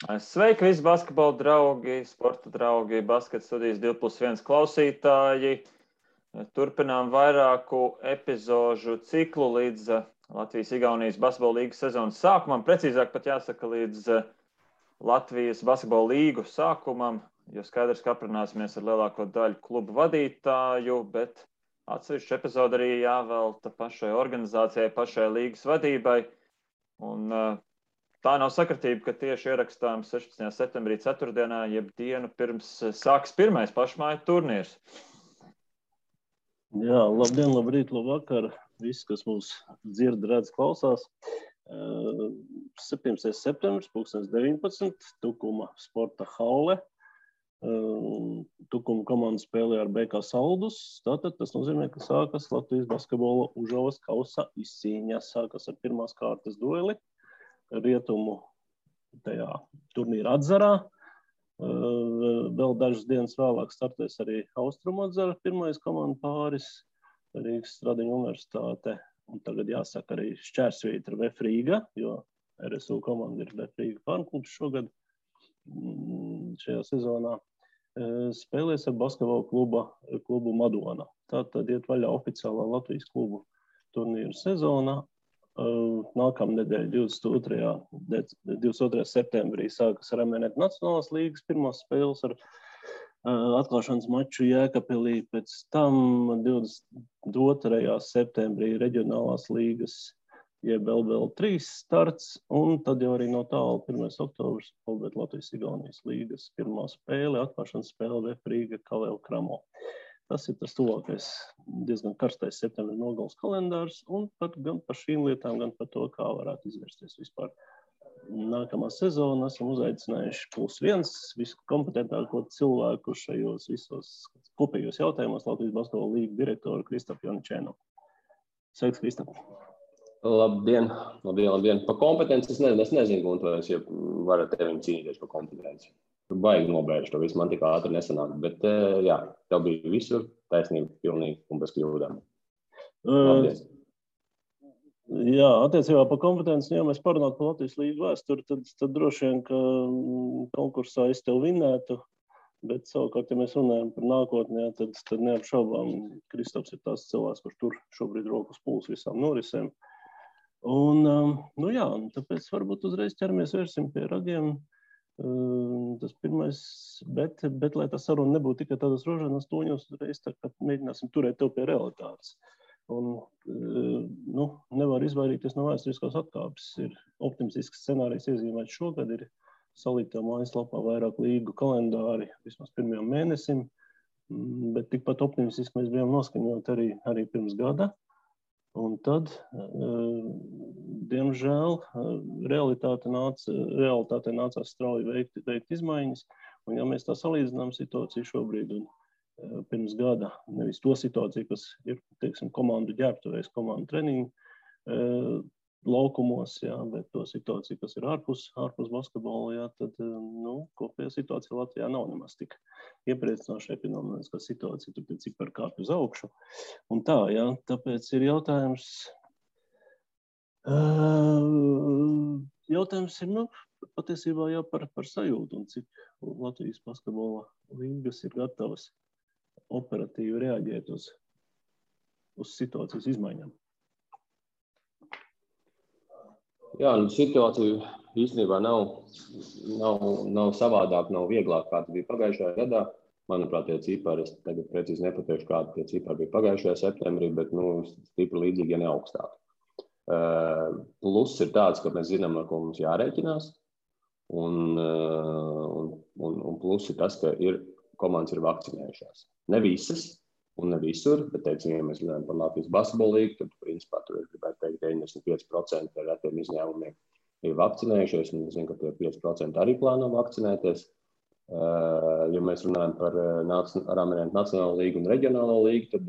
Sveiki visi basketbola draugi, sporta draugi, basketa studijas 2+1 klausītāji. Turpinām vairāku epizožu ciklu līdz Latvijas-Igaunijas basketbola līgas sezonas sākumam. Precīzāk pat jāsaka līdz Latvijas basketbola līgu sākumam, jo skaidrs, ka aprunāsimies ar lielāko daļu klubu vadītāju, bet atsevišķu epizodu arī jāvelta pašai organizācijai, pašai līgas vadībai. Un tā nav sakritība, ka tieši ierakstām 16. septembrī ceturtdienā, jeb dienu pirms sāks pirmais pašmāju turnīrs. Jā, labdien, labrīt, labvakar. Visi, kas mūs dzird, redz, klausās. 17. septembris, 2019, Tukuma sporta halle. Tukuma komanda spēlē ar BK Saldus. Tātad tas nozīmē, ka sākas Latvijas basketbola Užavas kausa izcīņa. Sākas ar pirmās kārtas dueli rietumu tajā turnīra atzarā. Vēl dažas dienas vēlāk startēs arī Austrumu atzara pirmais komandu pāris, Rīgas Stradiņu universitāte. Un tagad jāsaka arī šķērsvītra VF Rīga, jo RSU komanda ir VF Rīga pārklubs šogad šajā sezonā. Spēlēs ar basketbola klubu Madona. Tātad iet vaļā oficiālā Latvijas klubu turnīra sezona. Nākamnedēļ 22. septembrī sākas Ramenet Nacionālās līgas pirmās spēles ar atklāšanas maču Jēkabpilī. Pēc tam 22. septembrī reģionālās līgas jeb LBL3 starts, un tad jau arī no tālu 1. oktobrs Latvijas-Igaunijas līgas pirmā spēle, atklāšanas spēle VF Rīga Kaleo Kramo. Tas ir tas tuvākais, diezgan karstais septembra nogales kalendārs, un gan par šīm lietām, gan par to, kā varētu izvērsties vispār nākamā sezona. Esam uzaicinājuši +1 visu kompetentāko cilvēku šajos visos kopējos jautājumos Latvijas basketbola līga direktoru Kristapu Janičēnu. Sveiks, Kristap! Labdien! Pa kompetenci es nezinu, un to es jau varu ar tevim cīnīties par kompetenci. Baigi nobēršu to visu, man tik ātri nesanāk, bet jā, tev bija visur taisnība pilnīgi un bez kļūdām. Labdien! Jā, attiecībā par kompetenci, ja mēs parunātu par Latvijas līgu vēsturi, tad droši vien, ka konkursā es tev vinētu, bet savukārt, ja mēs runājam par nākotnē, tad neapšaubām Kristaps ir tās cilvēks, kurš tur šobrīd rokas pūls visām norisēm. Un, jā, tāpēc varbūt uzreiz ķeramies vērsim pie ragiem. Tas pirmais, bet lai tā saruna nebūtu tikai tādas rožanas toņos, uzreiz tā kā mēģināsim turēt tev pie realitātes. Un, nevar izvairīties no vēsturiskās atkāpes. Ir optimistisks scenārijs iezīmēts šogad, ir salītā mājaslapā vairāk līgu kalendāri vismaz pirmajam mēnesim, bet tikpat optimistiski mēs bijām noskaņoti arī pirms gada. Un tad, diemžēl, realitātē nācās strauji veikt izmaiņas. Un ja mēs tā salīdzinām situāciju šobrīd un pirms gada, nevis to situāciju, kas ir, teiksim, komandu ģērbtuvēs, komandu treniņu laukumos, jā, bet to situāciju, kas ir ārpus basketbola, jā, tad, kopējā situācija Latvijā nav nemaz tik iepriecinoša ekonomiskā situācija, tur tie cipari kāpj uz augšu. Un tā, jā, tāpēc ir jautājums ir, patiesībā jā, par sajūtu un cik Latvijas basketbola līgas ir gatavas operatīvi reaģēt uz situācijas izmaiņām. Jā, situācija īstenībā nav savādāk, nav vieglāk, kā tas bija pagājušajā gadā. Manuprāt, tie cipari, es tagad precīzi nepateikšu, kādi tie cipari bija pagājušajā septembrī, bet stipri līdzīgi, ja ne augstāk. Plus ir tāds, ka mēs zinām, ar ko mums jārēķinās, un plus ir tas, ka komandas ir vakcinējušās. Ne visas un ne visur, bet, teiksim, ja mēs runājam par Latvijas basketbola līgu, tad, principā, tur ir, gribētu teikt, 95% ar retiem izņēmumiem ir vakcinējušies, un es zinu, ka tie 5% arī plāno vakcinēties. Ja mēs runājam par Ramenet Nacionālo līgu un reģionālo līgu, tad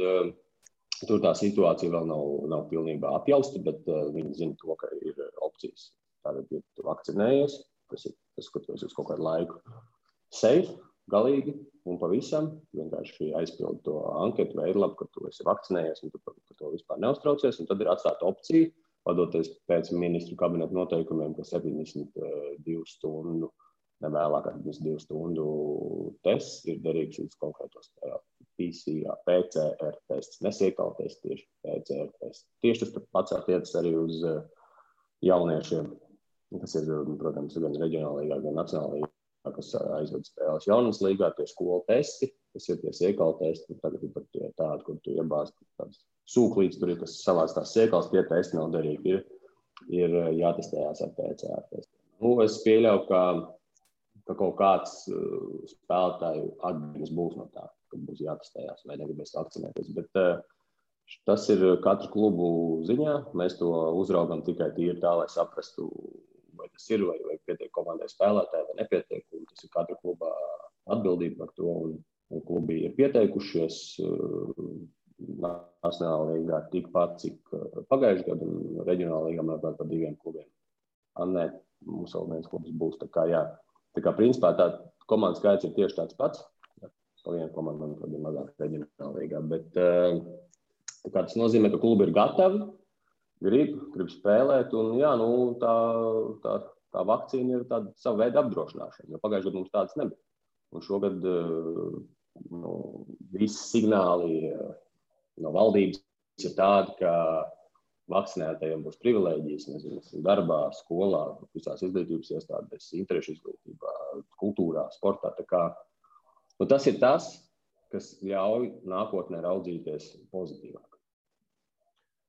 tur tā situācija vēl nav pilnībā apjausta, bet viņi zina to, ka ir opcijas. Tātad, ja tu vakcinējies, tas ir tas, ka tu esi uz kaut kādu laiku safe, galīgi un pavisam, vienkārši aizpildi to anketu veidlapu, ka tu esi vakcinējies un tu par to vispār neuztraucies, un tad ir atstāta opcija, vadoties pēc ministru kabineta noteikumiem, ka 72 stundu ne vēlāk kā 2 stundu tests ir derīgs līdz konkrētos PCR, PCR tests, nesiekala tests, tieši PCR tests. Tieši tas pats attiecas arī uz jauniešiem, kas ir, protams, gan reģionāla līgā, gan nacionāla līgā, kas aizved spēles jaunas līgā, tie skolu testi, kas ir tie siekala testi, tagad ir pat tādi, kur tu iebāzi tādas sūklītes, tur ir, kas savāc tās siekals, tie testi nav derīgi, ir jātestējās ar PCR testiem. Nu, es pieļauju, ka kaut kāds spēlētāju atbildības būs no tā, ka būs jātestējās vai negribēs vakcinēties, bet tas ir katru klubu ziņā, mēs to uzraugam tikai tīri tā, lai saprastu, vai tas ir, vai pietiek komandai spēlētāji, vai nepietiek, un tas ir katra kluba atbildība par to, un klubi ir pieteikušies nacionālā līgā tikpat, cik pagājušajā gadu, un reģionālā līgā mēs par 2 klubiem. Nē, mums vēl viens klubs būs, tā kā jā. Tā kā principā tā komandas skaits ir tieši tāds pats, pa vienu komandu, manuprāt, ir mazāk reģionālā līgā, bet tā kā tas nozīmē, ka klubi ir gatavi, grib spēlēt, un jā, nu, tā vakcīna ir tāda sava veida apdrošināšana, jo pagājušajā gadā mums tādas nebija. Un šogad visi signāli no valdības ir tādi, ka vakcinētajiem būs privilēģijas, nezinu, darbā, skolā, visās izglītības iestādēs, interešu izglītībā, kultūrā, sportā. Tā kā, tas ir tas, kas ļauj nākotnē raudzīties pozitīvāk.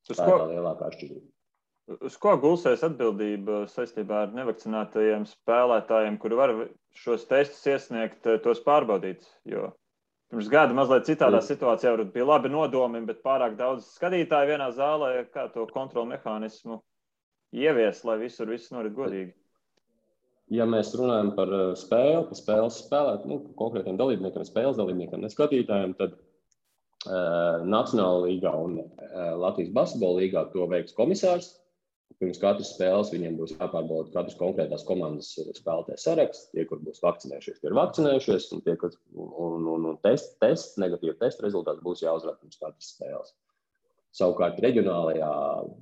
Tā ir tā lielākā atšķirība. Uz ko gulsies atbildība saistībā ar nevakcinētajiem spēlētājiem, kuri var šos testus iesniegt, tos pārbaudīt? Jo pirms gada mazliet citādā situācijā bija labi nodomi, bet pārāk daudz skatītāju vienā zālē, kā to kontrolu mehānismu ievies, lai visur viss norit godīgi. Ja mēs runājam par spēli, par spēles spēlēt, konkrētiem dalībniekiem, spēles dalībniekiem, ne skatītājiem, tad Nacionāla līgā un Latvijas basketbola līgā to veiks komisārs. Pirms katras spēles viņiem būs jāpārbauda katras konkrētās komandas spēlētāju saraksts. Tie, kur būs vakcinējušies, tie ir vakcinējušies, un tie, kas negatīva testa rezultāts būs jāuzrāda pirms katras spēles. Savukārt reģionālajā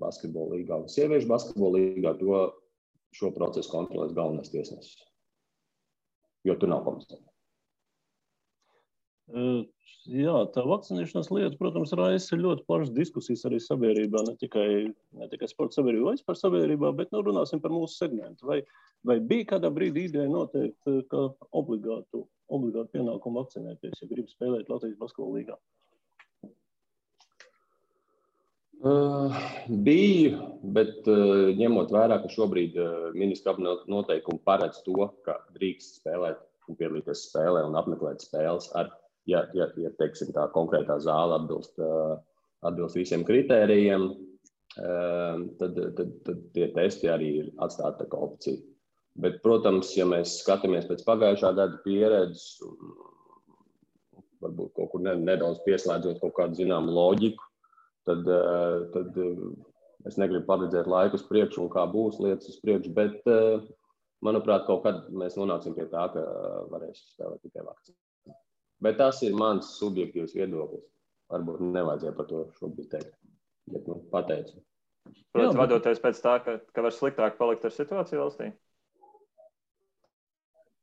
basketbola līgā un sieviešu basketbola līgā šo procesu kontrolēs galvenais tiesnesis, jo tur nav komisāra. Jā, tā vakcinēšanās lieta, protams, raisa ļoti plašas diskusijas arī sabiedrībā, ne tikai sporta sabiedrībā, vai vispār sabiedrībā, bet runāsim par mūsu segmentu. Vai bija kādā brīdī ideja noteikt, ka obligātu pienākumu vakcinēties, ja grib spēlēt Latvijas basketbola līgā? Bija, bet ņemot vērā, ka šobrīd ministra kabineta noteikumi paredz to, ka drīkst spēlēt un piedalīties spēlē un apmeklēt spēles ja teiksim, tā konkrētā zāle atbilst visiem kritērijiem, tad tie testi arī ir atstāti kā opcija. Bet, protams, ja mēs skatāmies pēc pagājušā gada pieredzes, varbūt kaut kur nedaudz pieslēdzot kaut kādu zināmu loģiku, tad es negribu paredzēt laiku uz priekšu un kā būs lietas uz priekšu, bet, manuprāt, kaut kad mēs nonāksim pie tā, ka varēs spēlēt tikai vakcīnu. Bet tas ir mans subjektīvs viedoklis. Varbūt nevajadzēja par to šobrīd teikt, bet pateicu. Protams, vadoties pēc tā, ka var sliktāk palikt ar situāciju valstī?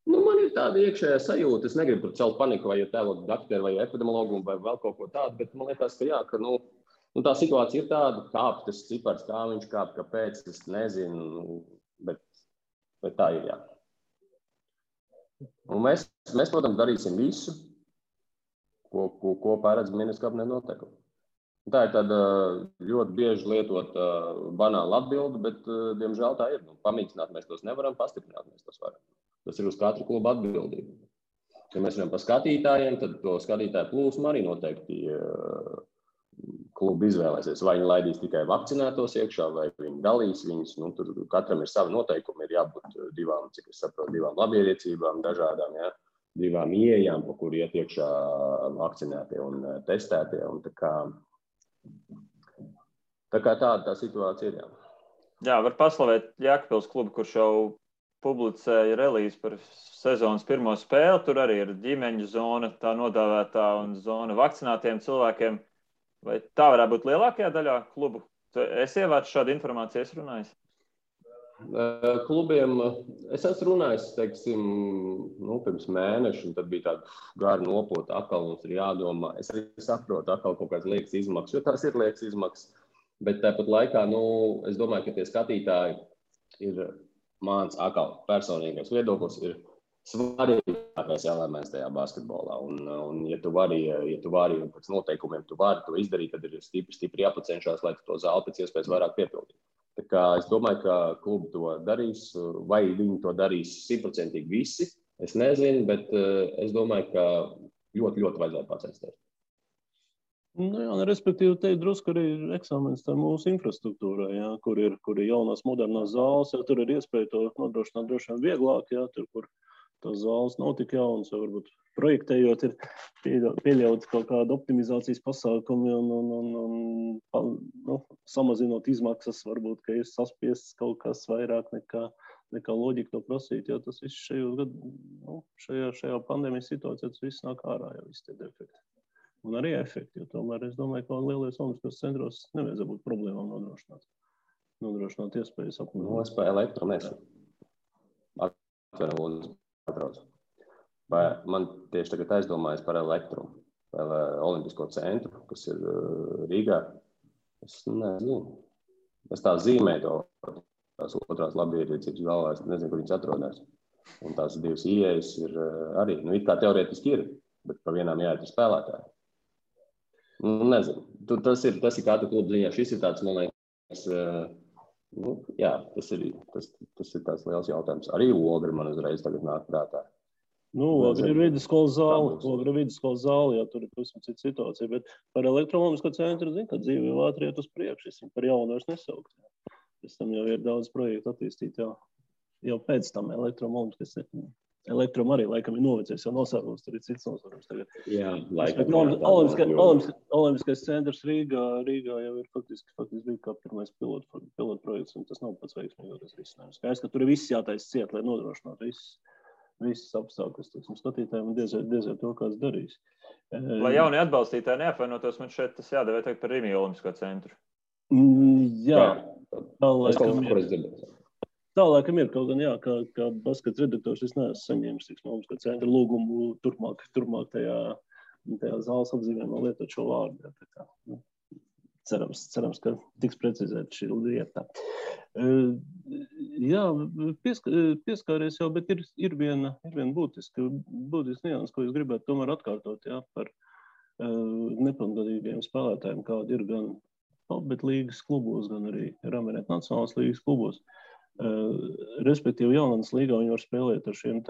Man ir tāda iekšējā sajūta. Es negribu tur celt paniku vai tēlot dakteru vai epidemiologu vai vēl kaut ko tādu, bet man liekas, ka jā, ka tā situācija ir tāda, kāp tas cipars, kā viņš kāp, kāpēc, es nezinu, bet tā ir, jā. Un mēs, protams, darīsim visu, ko paredz ministra kabineta noteikumi. Tā ir tāda ļoti bieži lietot banāla atbilde, bet, diemžēl, tā ir. Pamīkstināt mēs tos nevaram, pastiprināt mēs tos varam. Tas ir uz katru klubu atbildību. Ja mēs runājam par skatītājiem, tad to skatītāju plūsmu arī noteikti klubi izvēlēsies. Vai viņi laidīs tikai vakcinētos iekšā, vai viņi dalīs viņus. Tur katram ir savi noteikumi, ir jābūt divām, cik es saprotu, divām labierīcībām, dažādām, jā. 2 ieejām, pa kur iet iekšā vakcinētie un testētie. Un tā kā tā situācija ir. Jā, var paslavēt Jēkabpils klubu, kurš jau publicēja relīzi par sezonas pirmo spēli. Tur arī ir ģimeņu zona, tā nodāvētā, un zona vakcinētiem cilvēkiem. Vai tā varētu būt lielākajā daļā klubu? Es ievācu šādu informāciju, es runāju. Klubiem es esmu runājis, teiksim, pirms mēneša, un tad bija tāda gara nopota, atkal mums ir jādomā. Es arī saprotu, atkal kaut kāds liekas izmaksas, jo tās ir liekas izmaksas, bet tāpat laikā, es domāju, ka tie skatītāji ir mans atkal personīgais viedoklis, ir svarīgākais elements tajā basketbolā. Un ja tu vari, un pēc noteikumiem tu vari to izdarīt, tad ir stipri jāpacenšās, lai tu to zāli pēc iespējas vairāk piepildītu. Tā kā es domāju, ka klubi to darīs, vai viņi to darīs 100% visi, es nezinu, bet es domāju, ka ļoti, ļoti vajadzētu pacensties. Respektīvi, te drusku arī ir eksāmenis tā mūsu infrastruktūrā, kur ir jaunās modernās zāles, tur ir iespēja to nodrošināt droši vien vieglāk, tur, kur tās zāles nav tik jaunas, vai varbūt projektējot ir pieļaut kaut kādu optimizācijas pasākumu un samazinot izmaksas, varbūt, ka ir saspiests kaut kas vairāk nekā loģika to prasīt, jo tas viss šajā pandēmijas situācijā tas viss nāk ārā, jau visi tie defekti. Un arī efekti, jo tomēr es domāju, ka lielajos olimpiskos centros nevajadzētu būt problēmām nodrošināt iespējas apmēram. Es pa elektro nesu. Vai man tieši tagad aizdomājas par elektro, vai olimpisko centru, kas ir Rīgā. Es nezinu. Es tā zīmēju to, tās otrās labierīcības galvā, es nezinu, kur viņas atrodas. Un tās divas ieejas ir arī, it kā teorētiski ir, bet pa vienām jāiet ir spēlētāji. Nezinu. Tas ir katra kluba ziņā. Šis ir tāds, man liekas, tas ir tāds liels jautājums. Arī Ogri man uzreiz tagad nāk prātā. Ogri ir vidusskolas zāle, jā, tur ir pavisam cita situācija, bet par elektronomisko centru, ka dzīve jau ātri iet uz priekšu, es viņu par jaunu vairs nesaukt. Pēc tam jau ir daudz projektu attīstīt, jau pēc tam elektrom arī laikam ir novecējis, jau nosārums, tur ir cits nosārums tagad. Jā, laikam. Olimpiskais centrs Rīgā jau ir faktiski bija kā pirmais pilotprojekts, un tas nav pats veiksmīgākais risinājums. Skaidrs, ka tur ir viss jātaisa ciet, lai nodrošinātu visas apstākļus, skatītājiem un diezvēl to, kāds darīs. Lai jaunie atbalstītāji neapvainotos, man šeit tas jādevē tagad par Rīgas Olimpisko centru. Jā. Tā laikam ir, kaut gan, kā baskets redaktors, es neesmu saņēmis Olimpisko centra lūgumu turpmāk tajā zāles apzīmējumā lietot šo vārdu. Cerams, ka tiks precizēta šī lieta. Jā, pieskāries jau, bet ir viena būtiska nianses, ko es gribētu tomēr atkārtot, par nepilngadīgiem spēlētājiem, kādi ir gan Albert līgas klubos, gan arī Ramirēt nacionālās līgas klubos. Respektīvi, Jaunatnes līgā viņi var spēlēt ar šiem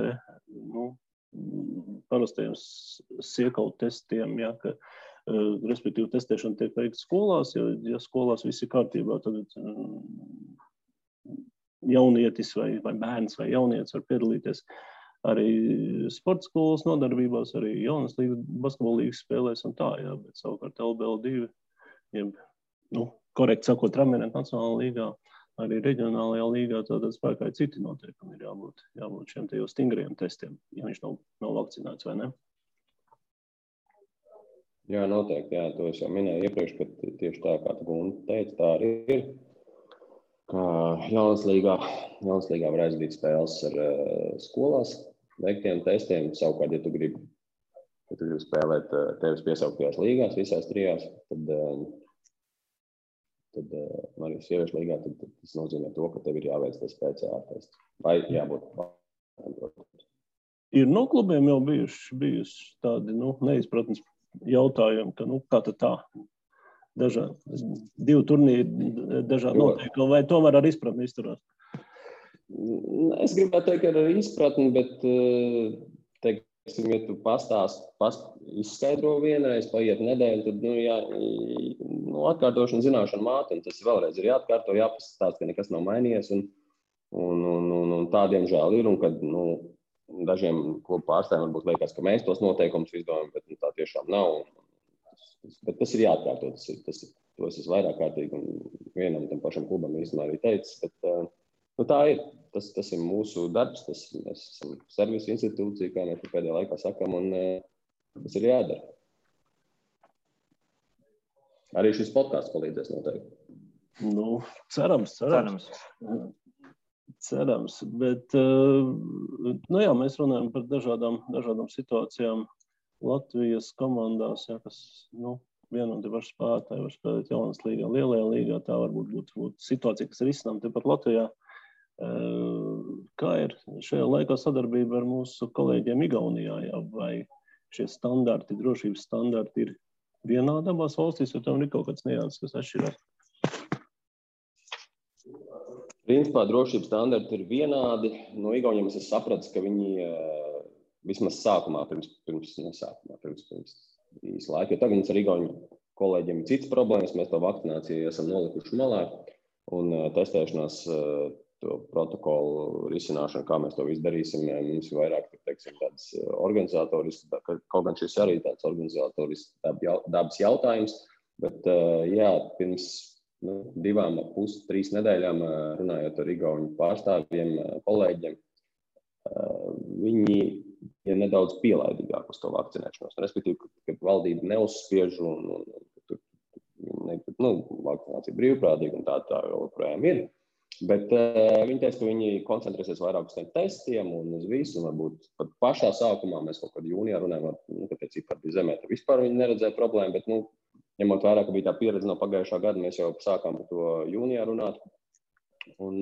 parastajiem siekalu testiem, ka respektīvi testēšana tiek veikta skolās, ja skolās viss ir kārtībā, tad jaunietis vai bērns vai jaunietis var piedalīties arī sporta skolas nodarbībās, arī Jaunas līgas, basketbola līgas spēlēs un tā, bet savukārt LBL2, korekti sakot, Ramirēt nacionālā līgā, arī reģionālajā līgā, tātad spēkā ir citi noteikumi, ir jābūt šiem te jau stingriem testiem, ja viņš nav vakcinēts vai ne. Jā, noteikti, to es jau minēju iepriekš, ka tieši tā, kā tu Gunta teica, tā arī ir, ka Jaunas līgā var aizvīt spēles ar skolās veiktiem testiem, savukārt, ja tu gribi spēlēt tevis piesauktajās līgās, visās trijās, tad arī sieviešu līgā, tad tas nozīmē to, ka tev ir jāveic tas PCR tests, vai jābūt. Ir no klubiem jau bijuši tādi, neizpratnes jautājumi, ka, kā tad tā, divi turnīri, dažādi noteikumi, vai tomēr ar izpratni izturās? Es gribētu teikt, ka ar izpratni, bet, teiksim, ja tu izskaidro vienreiz, paiet nedēļu, tad, atkārtošana zināšana māte, un tas vēlreiz ir jāatkārto, jāpastāst, ka nekas nav mainījies, un tādiem žēl ir, un kad, dažiem klubu pārstāvjiem varbūt liekas, ka mēs tos noteikumus izdomājam, bet tā tiešām nav. Bet tas ir jāatkārto, to es esmu vairāk kārtīgi un vienam tam pašam klubam īstenībā arī teicis, bet tā ir. Tas ir mūsu darbs, mēs esam servisu institūcija, kā mēs pēdējā laikā sakam, un tas ir jādara. Arī šis podcasts palīdzēs noteikti. Cerams. Cerams, bet nu jā, mēs runājam par dažādām situācijām Latvijas komandās, jā, kas viena un tie paši spēlētāji var spēlēt jaunas līgā, lielajā līgā, tā varbūt būt situācija, kas ir izcinām tepat Latvijā. Kā ir šajā laikā sadarbība ar mūsu kolēģiem Igaunijā, jā, vai šie standarti, drošības standarti ir vienādi abās valstīs, jo tam ir kaut kāds nianses, kas atšķirās? Principā drošības standarti ir vienādi. No Igauniem es sapratu, ka viņi vismaz sākumā, pirms īsa laika, jo tagad mums ar Igauniem kolēģiem ir cits problēmas, mēs to vakcināciju esam nolikuši malā un testēšanās to protokolu risināšanu, kā mēs to visu darīsim, mums ir vairāk, teiksim, tāds organizatorisks, kaut gan šis arī tāds organizatorisks dabas jautājums, bet jā, pirms 2,5–3 nedēļām runājot ar igauņu pārstāvjiem, kolēģiem, viņi ir nedaudz pielaidīgāk uz to vakcinēšanos. Respektīvi, kad valdība neuzspiež un vakcinācija brīvprātīga un tā joprojām ir. Bet viņi teica, ka viņi koncentrēsies vairāk uz tiem testiem un uz visu, un varbūt pat pašā sākumā mēs kaut kad jūnijā runājam, ka tie cipari bija zemē, tad vispār viņi neredzēja problēmu, bet, ņemot vērā, ka bija tā pieredze no pagājušā gada, mēs jau sākām par to jūnijā runāt. Un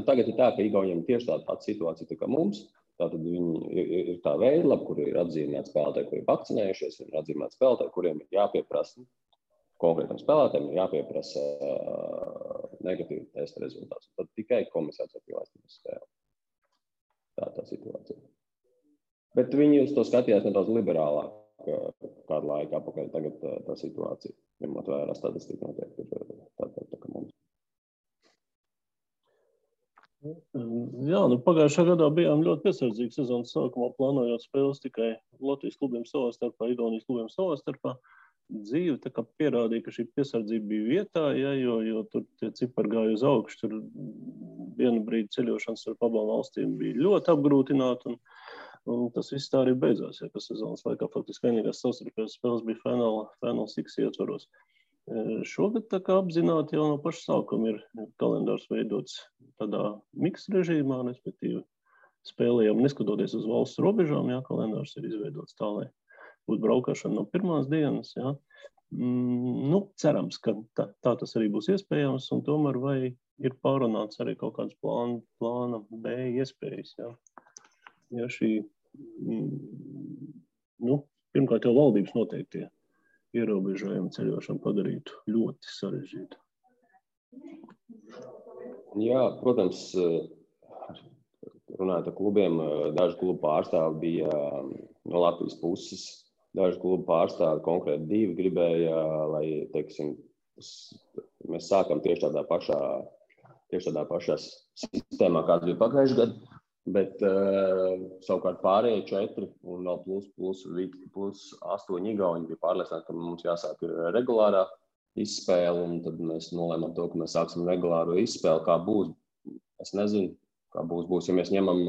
tagad ir tā, ka Igauniem tieši tāda pati situācija tā kā mums. Tātad viņi ir tā veidlapa, kur ir atzīmēti spēlētāji, kuri ir vakcinējušies, ir atzīmēti spēlētāji, kuriem ir jāpieprasa konkrētam spēlētājiem, ir jāpieprasa negatīvi testa rezultāts. Tad tikai komisārs var pielaist uz spēli. Tā situācija. Bet viņi uz to skatījās nedaudz liberālāk kādu laiku apakaļ. Tagad tā situācija, ņemot vērā statistiku, noteikti ir tā kā mums. Jā, pagājušā gadā bijām ļoti piesardzīgi sezonas sākumā, plānojot spēles tikai Latvijas klubiem savā starpā, Igaunijas klubiem savā starpā. Dzīve tā kā pierādīja, ka šī piesardzība bija vietā, ja, jo tur tie cipari gāja uz augšu, tur vienu brīdi ceļošanas ar abām valstīm bija ļoti apgrūtināta, un tas viss tā arī beidzās, ja, ka sezonas laikā faktiski vienīgās savstarpējās spēles bija Final Six ietvaros. Šogad tā kā apzināti jau no paša sākuma ir kalendārs veidots tādā miks režīmā, respektīvi spēlējām neskatoties uz valsts robežām, ja, kalendārs ir izveidots tā, lai būtu braukšana no pirmās dienas. Ja. Cerams, ka tā tas arī būs iespējams, un tomēr vai ir pārunāts arī kaut kāds plāna B iespējas. Ja, ja šī, pirmkārt jau valdības noteiktie ierobežojumi ceļošanu padarītu ļoti sarežģītu. Jā, protams, runājot ar klubiem, daži klubu pārstāvi bija no Latvijas puses. Daži klubu pārstāvi, konkrēti 2, gribēja, lai, teiksim, mēs sākam tieši tādā pašā sistēmā, kāds bija pagājušajā gadā, bet savukārt pārējie 4 un vēl plus 8 Igauni bija pārliecināti, ka mums jāsāk regulārā izspēle, un tad mēs nolēmām to, ka mēs sāksim regulāro izspēli. Kā būs, es nezinu, kā būs. Ja mēs ņemam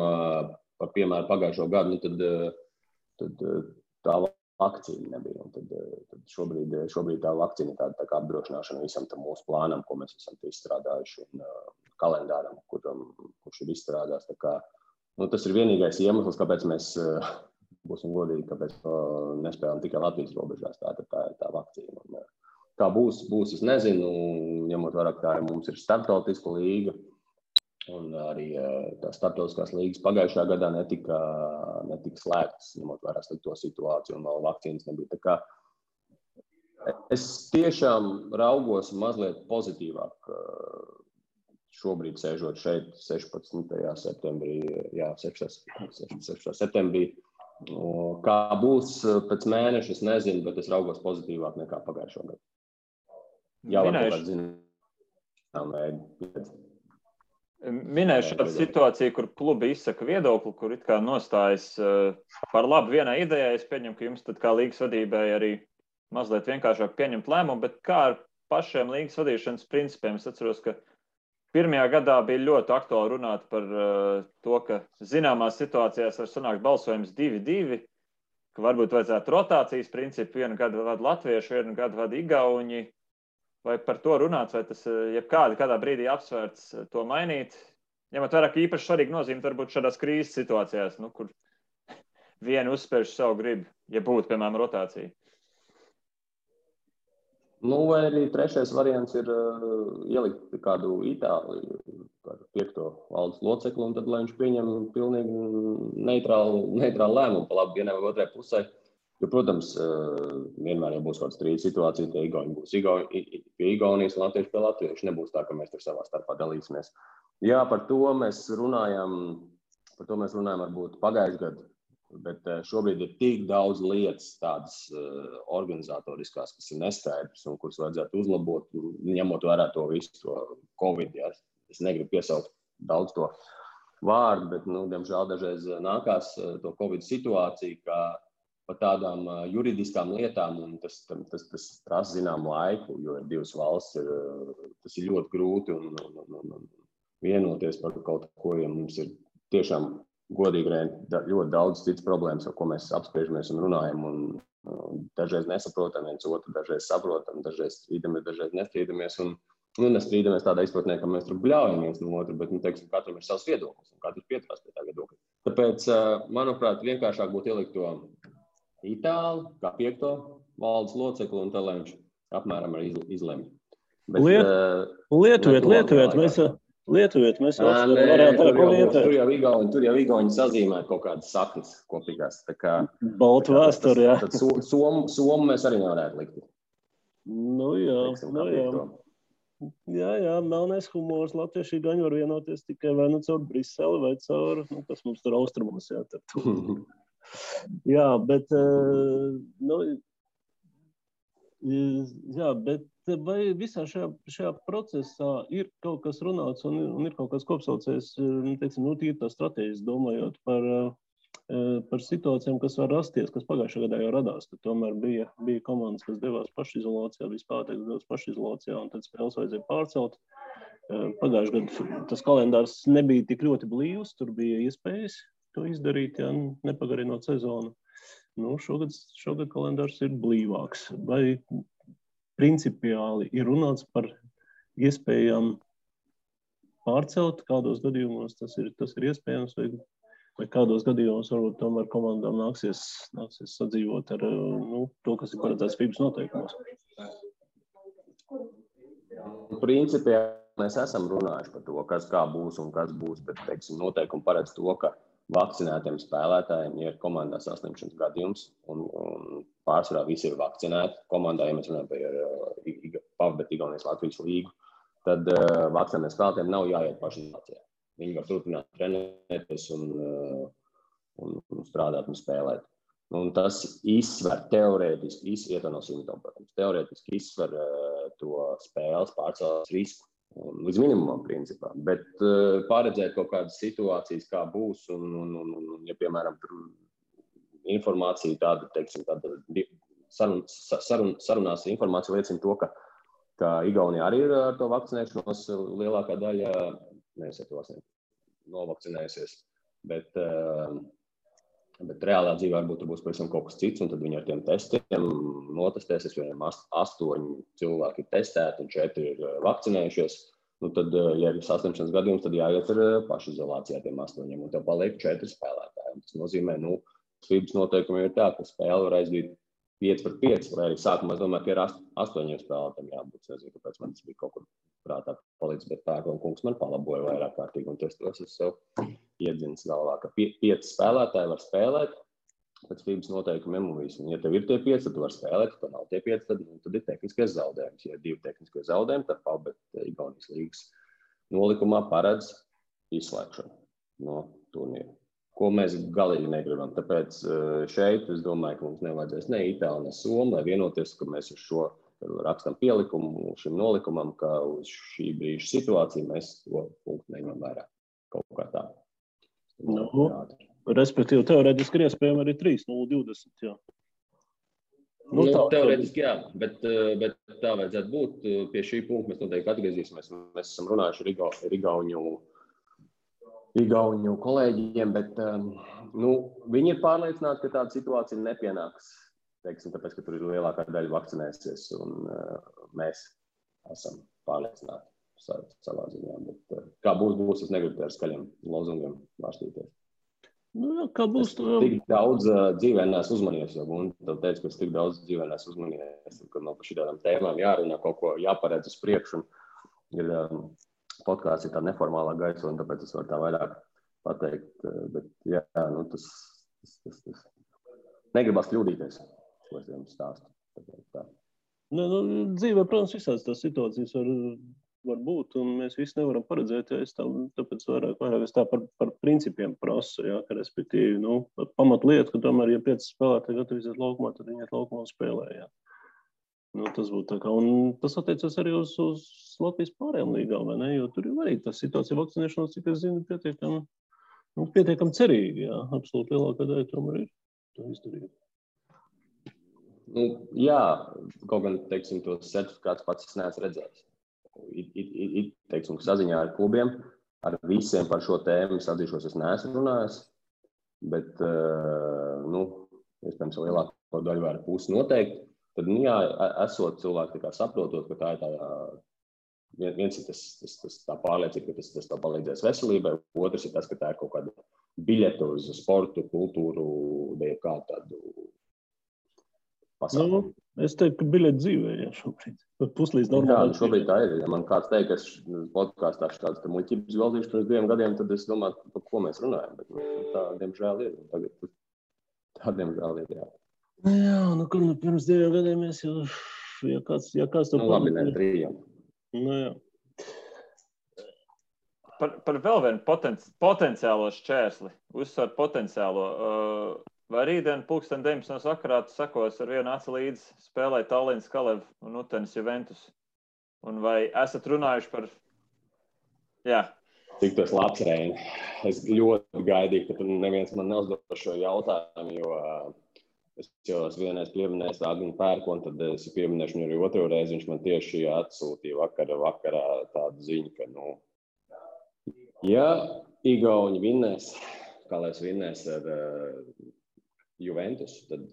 par piemēru pagājušo gadu, tad tā vakcīna nebija. Un tad šobrīd tā vakcīna ir tā kā apdrošināšana visam tam mūsu plānam, ko mēs esam izstrādājuši, un kalendāram, kurš ir izstrādās. Tā kā, tas ir vienīgais iemesls, kāpēc mēs būsim godīgi, kāpēc nespēlējam tikai Latvijas robežās. Tā vakcīna. Un, kā būs, es nezinu, ņemot vērā, ka mums ir starptautiska līga, un arī tās starptautiskās līgas pagājušajā gadā netika slēgtas, ņemot vērā to situāciju, un vēl vakcīnas nebija. Tā kā es tiešām raugos mazliet pozitīvāk šobrīd sēžot šeit 16. septembrī, 16. septembrī. Kā būs pēc mēneša, es nezinu, bet es raugos pozitīvāk nekā pagājušajā gadā. Jā, varbūt zinām, Minēju šādu situāciju, kur klubi izsaka viedokli, kur it kā nostājas par labu vienai idejai. Es pieņemu, ka jums tad kā līgas vadībai arī mazliet vienkāršāk pieņemt lēmumu, bet kā ar pašiem līgas vadīšanas principiem? Es atceros, ka pirmajā gadā bija ļoti aktuāli runāt par to, ka zināmās situācijās var sanākt balsojums 2-2, ka varbūt vajadzētu rotācijas principu, vienu gadu vada latvieši, vienu gadu vada igauņi. Vai par to runāts, vai tas kādā brīdī apsvērts to mainīt? ņemot vērā, ka īpaši svarīgi nozīme varbūt šādās krīzes situācijās, kur vienu uzspērš savu gribu, ja būtu, piemēram, rotācija. Vai arī trešais variants ir ielikt kādu Itāliju, kādu 5. valdes locekli, un tad, lai viņš pieņem pilnīgi neitrālu lēmumu pa labi vienai vai otrai pusē. Jo, protams, vienmēr jau būs kāda strīda situācija, tie Igauni būs pie Igaunijas un latvieši pie latviešu. Nebūs tā, ka mēs tur savā starpā dalīsimies. Jā, par to mēs runājam varbūt pagājušajā gadā. Bet šobrīd ir tik daudz lietas tādas organizatoriskās, kas ir neskaidrs un kuras vajadzētu uzlabot, ņemot vērā to visu to Covid. Ja. Es negribu piesaukt daudz to vārdu, bet, diemžēl, dažreiz nākās to Covid situāciju, kā par tādām juridiskām lietām, un tas prasa zināmu laiku, jo ir divas valsts, tas ir ļoti grūti un vienoties par kaut ko, ja mums ir tiešām godīgi ļoti daudz citas problēmas, ar ko mēs apspriežamies un runājam, un dažreiz nesaprotam viens otru, dažreiz saprotam, dažreiz strīdamies, dažreiz nestrīdamies, un nestrīdamies tādā izpratnē, ka mēs tur bļaujam viens no otru, bet, katram ir savs viedoklis, un katrs pieturās pie tā viedokļa. Tāpēc, manuprāt, vienkāršāk būtu ielikt to Itāli, kā 5. valdes locekli, un tā, lai viņš apmēram arī izlemj. Lietuviet, mēs varētu tur jau Igauni sazīmē kaut kādas saknes kopīgās. Baltu vēsturi, jā. Tad somu mēs arī nevarētu likt. Jā, melnais humors, latvieši gaņi var vienoties tikai vai caur Briseli vai caur, kas mums tur austrumos, jā. Jā, bet, bet vai visā šajā procesā ir kaut kas runāts un ir kaut kas kopsaucējs, tīri tā strateģiski domājot par situācijām, kas var rasties, kas pagājušajā gadā jau radās, ka tomēr bija komandas, kas devās pašizolācijā, vispārteiks devās pašizolācijā, un tad spēles vajadzēja pārcelt. Pagājušajā gadā tas kalendārs nebija tik ļoti blīvs, tur bija iespējas to izdarīt, ja nepagarinot sezonu. Šogad kalendārs ir blīvāks. Vai principiāli ir runāts par iespējām pārcelt, kādos gadījumos tas ir iespējams, vai kādos gadījumos varbūt tomēr komandām nāksies sadzīvot ar to, kas ir paredzēts FIBA noteikumos? Principā mēs esam runājuši par to, kā būs un kas būs, bet, noteikumi paredz to, ka vakcinētiem spēlētājiem ir komandā saslimšanas gadījums, un pārsvarā visi ir vakcinēti. Komandā, ja mēs runājam par Igaunijas Latvijas līgu, tad vakcinētiem spēlētājiem nav jāiet pašizolācijā. Viņi var turpināt trenēties un strādāt un spēlēt. Un tas izsver teorētiski, teorētiski izsver to spēles pārcēlās risku. Līdz minimumam, principā. Bet paredzēt kaut kādas situācijas, kā būs, un ja, piemēram, informācija tāda, sarunās informācija liecina to, ka Igaunija arī ir ar to vakcinēšanos lielākā daļa, novakcinējusies, bet reālā dzīvē varbūt tur būs pavisam kaut kas cits, un tad viņi ar tiem testiem notestēsies, jo 8 cilvēki ir testēti un 4 ir vakcinējušies. Tad, ja ir saslimšanas gadījums, tad jāiet ar pašizolācijā tiem 8, un tev paliek 4 spēlētāji. Tas nozīmē, FIBA noteikumi ir tā, ka spēle var aizdīt 5-5, vai arī sākumā es domāju, ka ir 8 spēlētājiem jābūt. Es nezinu, kāpēc man tas bija kaut kur prātā palicis, bet Pērkona kungs man palaboja vairāk kārtīgi, un tos es sev iedzins galvā, ka 5 spēlētāji var spēlēt pēc FIBA noteikumiem un visu. Un, ja tev ir tie 5, tad tu var spēlēt, ja nav tie 5, tad ir tehniskais zaudējums. Ja ir 2 tehniskie zaudējumi, tad PABET Igaunijas līgas nolikumā paredz izslēgšanu no turnīra, ko mēs galīgi negribam. Tāpēc šeit es domāju, ka mums nevajadzēs ne Itāli, ne Somu, lai vienoties, ka mēs uz šo rakstam pielikumu šim nolikumam, ka uz šī brīža situāciju mēs to punktu neņemam vērā. Kaut kā tā. Respektīvi, teorētiski ir iespējami arī 3-0-20, jā. Teorētiski jā, bet tā vajadzētu būt. Pie šī punkta mēs noteikti atgriezīsimies. Mēs esam runājuši ar Igauņu kolēģiem, bet viņi ir pārliecināti, ka tāda situācija nepienāks. Tāpēc, ka tur ir lielākā daļa vakcinēsies, un mēs esam pārliecināti savā ziņā. Bet, kā būs, es negribu ar skaļiem lozungiem vārstīties. Nu, kā būs? Tik daudz dzīvē neesmu uzmanījies, jo tev teica, ka es tik daudz dzīvē neesmu uzmanījies, kad man par šitādām tēmām jārunā, kaut ko jāparedz uz priekšu. Ir podkāsts ir tā neformālā gaisa, un tāpēc es varu tā vairāk pateikt. Bet, jā, nu, tas negribas kļūdīties, ko es jums stāstu. Nu, dzīvē, protams, visādas tās situācijas var būt, un mēs visi nevaram paredzēt, tāpēc vairāk es tā par principiem prasu, jā, ka respektīvi, pamatlieta, ka tomēr, ja 5 spēlētāji gatavīsies laukumā, tad viņi iet laukumā un spēlē, jā. Tas būtu tā kā, un tas attiecas arī uz Latvijas pārējām līgām, vai ne, jo tur ir arī tā situācija vakcinēšanās, cik es zinu, pietiekam cerīgi, jā, absolūti lielākā daļa tomēr ir to izdarīt. Jā, kaut gan, teiksim, tos certifikātus pats es neesmu redzējis. Teiksim, saziņā ar klubiem, ar visiem par šo tēmu es atzīšos, es neesmu runājis, bet, iespējams, lielāko daļu vai pusi noteikti, tad, jā, esot cilvēki tā kā saprotot, ka tā ir tā, viens ir tā pārliecība, ka tas tā palīdzēs veselībai, otrs ir tas, ka tā ir kaut kāda biļeta uz sportu, kultūru, vai kādu tādu pasākumu. Es teiktu, ka biļeti dzīvē, jā, šobrīd. Puslīdz normāli. Jā, šobrīd tā ir. Ja man kāds teikt, ka es podkāstā tāds muļķības galdīšu pirms 2 gadiem, tad es domāju, par ko mēs runājam. Bet tā, diemžēl, ir. Tagad tā, diemžēl, ir, jā. Jā, pirms 2 gadiem mēs jau, ja kāds to labi, ne, 3. Jā. Par vēl vienu potenciālo šķērsli, uzsver potenciālo. Vai rītdien 19. vakarā tu sakos ar vienu aci līdzi spēlēt Tallinas Kalev un Utenes Juventus? Un vai esat runājuši par... Jā. Cik tas labs, Reini. Es ļoti gaidīju, ka tu neviens man neuzdod šo jautājumu, jo es jau esmu vienreiz pieminējis Agni Pērkonu, tad es pieminēšu viņu arī otro reizi. Viņš man tieši atsūtīja vakarā tādu ziņu, ka, ja Igauni vinnēs, Kalevs vinnēs ar Juventus, tad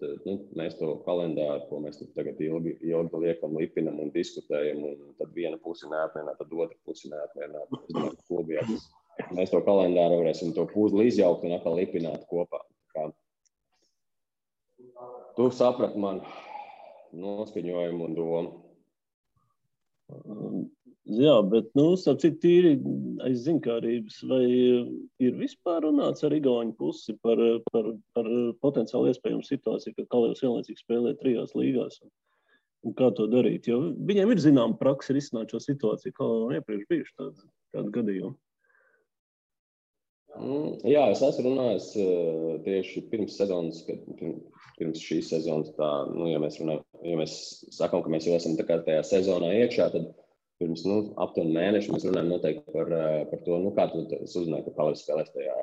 mēs to kalendāru, ko mēs tagad ilgi liekam, lipinam un diskutējam, un tad viena pusi neapmienā, tad otra pusi neapmienā. Mēs to kalendāru varēsim to puzli izjaukt un atkal lipināt kopā. Tu saprati man noskaņojumu un domu. Jā, bet, starp tīri aiz zinkārības, vai ir vispār runāts ar Igauņu pusi par potenciāli iespējamu situāciju, ka Kalevs vienlaicīgi spēlē 3 līgās un kā to darīt? Jo viņiem ir zināma praksa risināt šo situāciju, kā iepriekš bijuši tādu gadījumu. Jā, es esmu runājis tieši pirms sezonas, pirms šīs sezonas, ja mēs sakām, ka mēs jau esam tā kā tajā sezonā iekšā, tad pirms aptuveni mēnešu mēs runājam noteikti par to, kā es uzzināju, ka Kalevs spēlēs tajā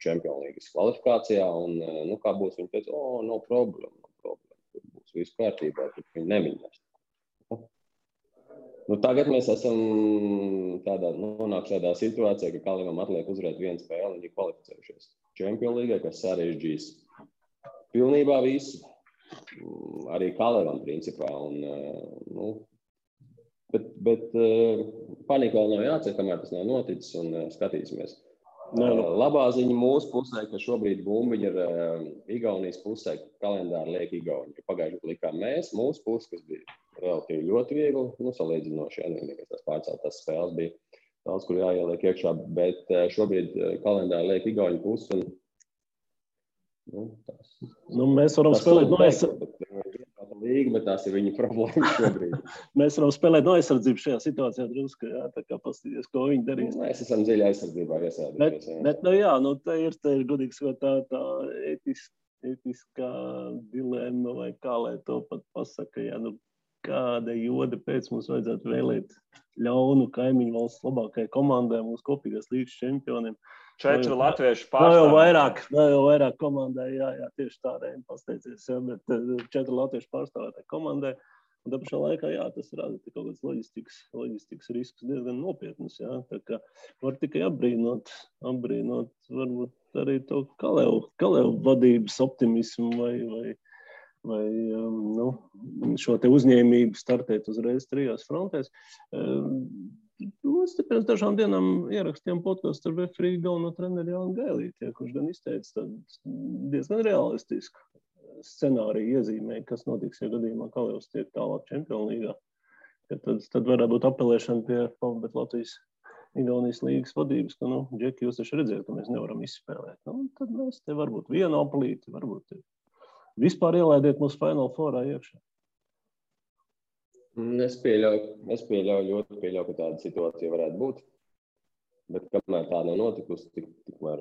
Champions Leagues kvalifikācijā, un kā būs, viņi teica, no problēma, tur būs viss kārtībā, tur viņi neminēs. Tagad mēs esam nonākuši tādā situācijā, ka Kalevam atliek uzvarēt 1 spēli, viņi ir kvalificējušies Champions League, kas sarežģīs pilnībā visu, arī Kalevam principā, bet panika vēl nav jācer, kamēr tas nav noticis, un skatīsimies. Labā ziņa mūsu pusē, ka šobrīd bumbiņi ir Igaunijas pusē, kalendāri liek Igauni. Pagājuši likām mēs, mūsu puse, kas bija relatīvi ļoti viegli, salīdzinoši, vienīgais tās pārceltās spēles bija daudz, kur jāieliek iekšā, bet šobrīd kalendāri liek Igauni pusi, un mēs varam spēlēt līga, bet tās ir viņa problēmas šobrīd. Mēs varam spēlēt no aizsardzību šajā situācijā drusku, jā, tā kā pastīties, ko viņi darīs. Mēs esam dziļi aizsardzībā iesēdušies. Bet, tā ir godīgi sakot, tā etiskā dilemma, vai kā, lai to pat pasaka, jā, kāda joda pēc mums vajadzētu vēlēt ļaunu kaimiņu valsts labākajai komandai, mūsu kopīgās līgas čempioniem. 4 latviešu pārstāvji. Vēl jau vairāk komandai, jā, tieši tādēļ pasteicies, jā, bet 4 latviešu pārstāvētāji komandai. Un tā pašā laikā, jā, tas rada kaut kāds loģistikas risks diezgan nopietnus, jā. Tā kā var tikai apbrīnot varbūt arī to Kalevu vadības optimismu vai šo te uzņēmību startēt uzreiz 3 frontēs. Mums pirms dažām dienām ierakstījām podcastu ar referiju galveno treneri Jānu Gailīti, kurš gan izteica diezgan realistisku scenāriju iezīmēja, kas notiks, ja gadījumā Kalevs tiek tālāk Čempionu līgā. Tad varētu būt apelēšana pie Pavbet Latvijas Igaunijas līgas vadības, ka, Džeki, jūs taču redzēt, ka mēs nevaram izspēlēt. Tad mēs te varbūt vienu apelīti, varbūt vispār ielaidiet mūsu Final Fourā iekšā. Es pieļauju, ka tāda situācija varētu būt. Bet kamēr tā nav notikusi, tikmēr...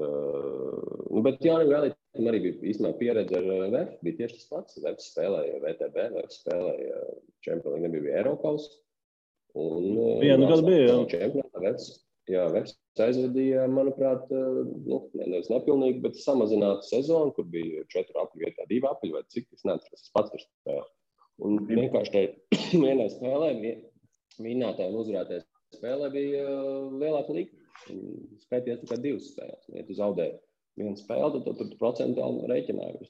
bet Jānim Gailītam arī bija īstenībā pieredze ar VF. Bija tieši tas pats. VF spēlēja VTB, VF spēlēja Čempionu līgu, nebija Eiropaus. Vienu gadu bija, jā. VF aizvadīja, manuprāt, nevis nepilnīgi, bet samazinātu sezonu, kur bija 4 apļu vietā, 2 apļu vai cik, es neatceros, es pats tur spēlēju. Un vienkārši tai vienai spēlē, vinnētāji un uzvarētāji spēlē bija lielāka līga. Skaities tikai 2 spēles. Ja tu zaudēji 1 spēli, tad tu procentuāli rēķināji.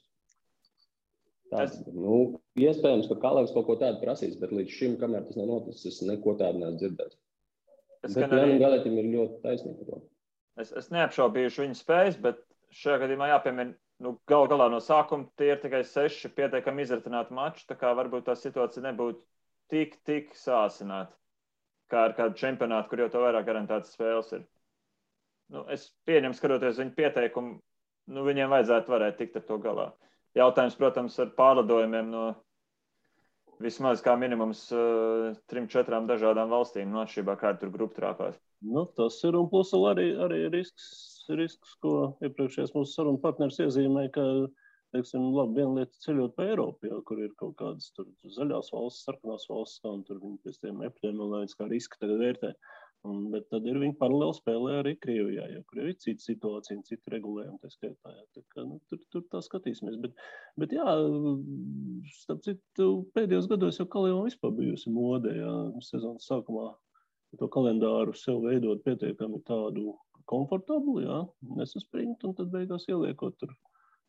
Iespējams, ka Kalevs kaut ko tādu prasīs, bet līdz šim, kamēr tas nav noticis, es neko tādu neesmu dzirdējis. Bet Jānim Gailītam ir ļoti taisnība. Es neapšaubījuši viņa spējas, bet šajā gadījumā jāpiemina, gal galā no sākuma tie ir tikai 6 pietiekami izritināti mači, tā kā varbūt tā situācija nebūtu tik sāsināta, kā ar kādu čempionātu, kur jau to vairāk garantētas spēles ir. Es pieņemu, skatoties viņu pieteikumu, viņiem vajadzētu varēt tikt ar to galā. Jautājums, protams, ar pārlidojumiem no vismaz kā minimums 3-4 dažādām valstīm, atšķirībā kā tur grupu trāpās. Tas ir, un plus arī risks, ko iepriekšējais mūsu sarunu partneris iezīmēja, ka, teiksim, viena lieta ceļot pa Eiropu, kur ir kaut kādas tur zaļās valsts, sarkanās valsts, un tur viņi pēc tiem epidemioloģijas kā riski tagad vērtē. Bet tad ir viņi paralēli spēlē arī Krievijā, kur ir cita situācija un cita regulējuma, tā skaitā. Tā kā, tur tā skatīsimies. Bet jā, starp citu, pēdējos gados jau Kalevam vispār bijusi mode, sezonas sākumā to kalendāru sev veidot pietiekami tādu komfortablu, nesaspringt, un tad beigās ieliekot tur.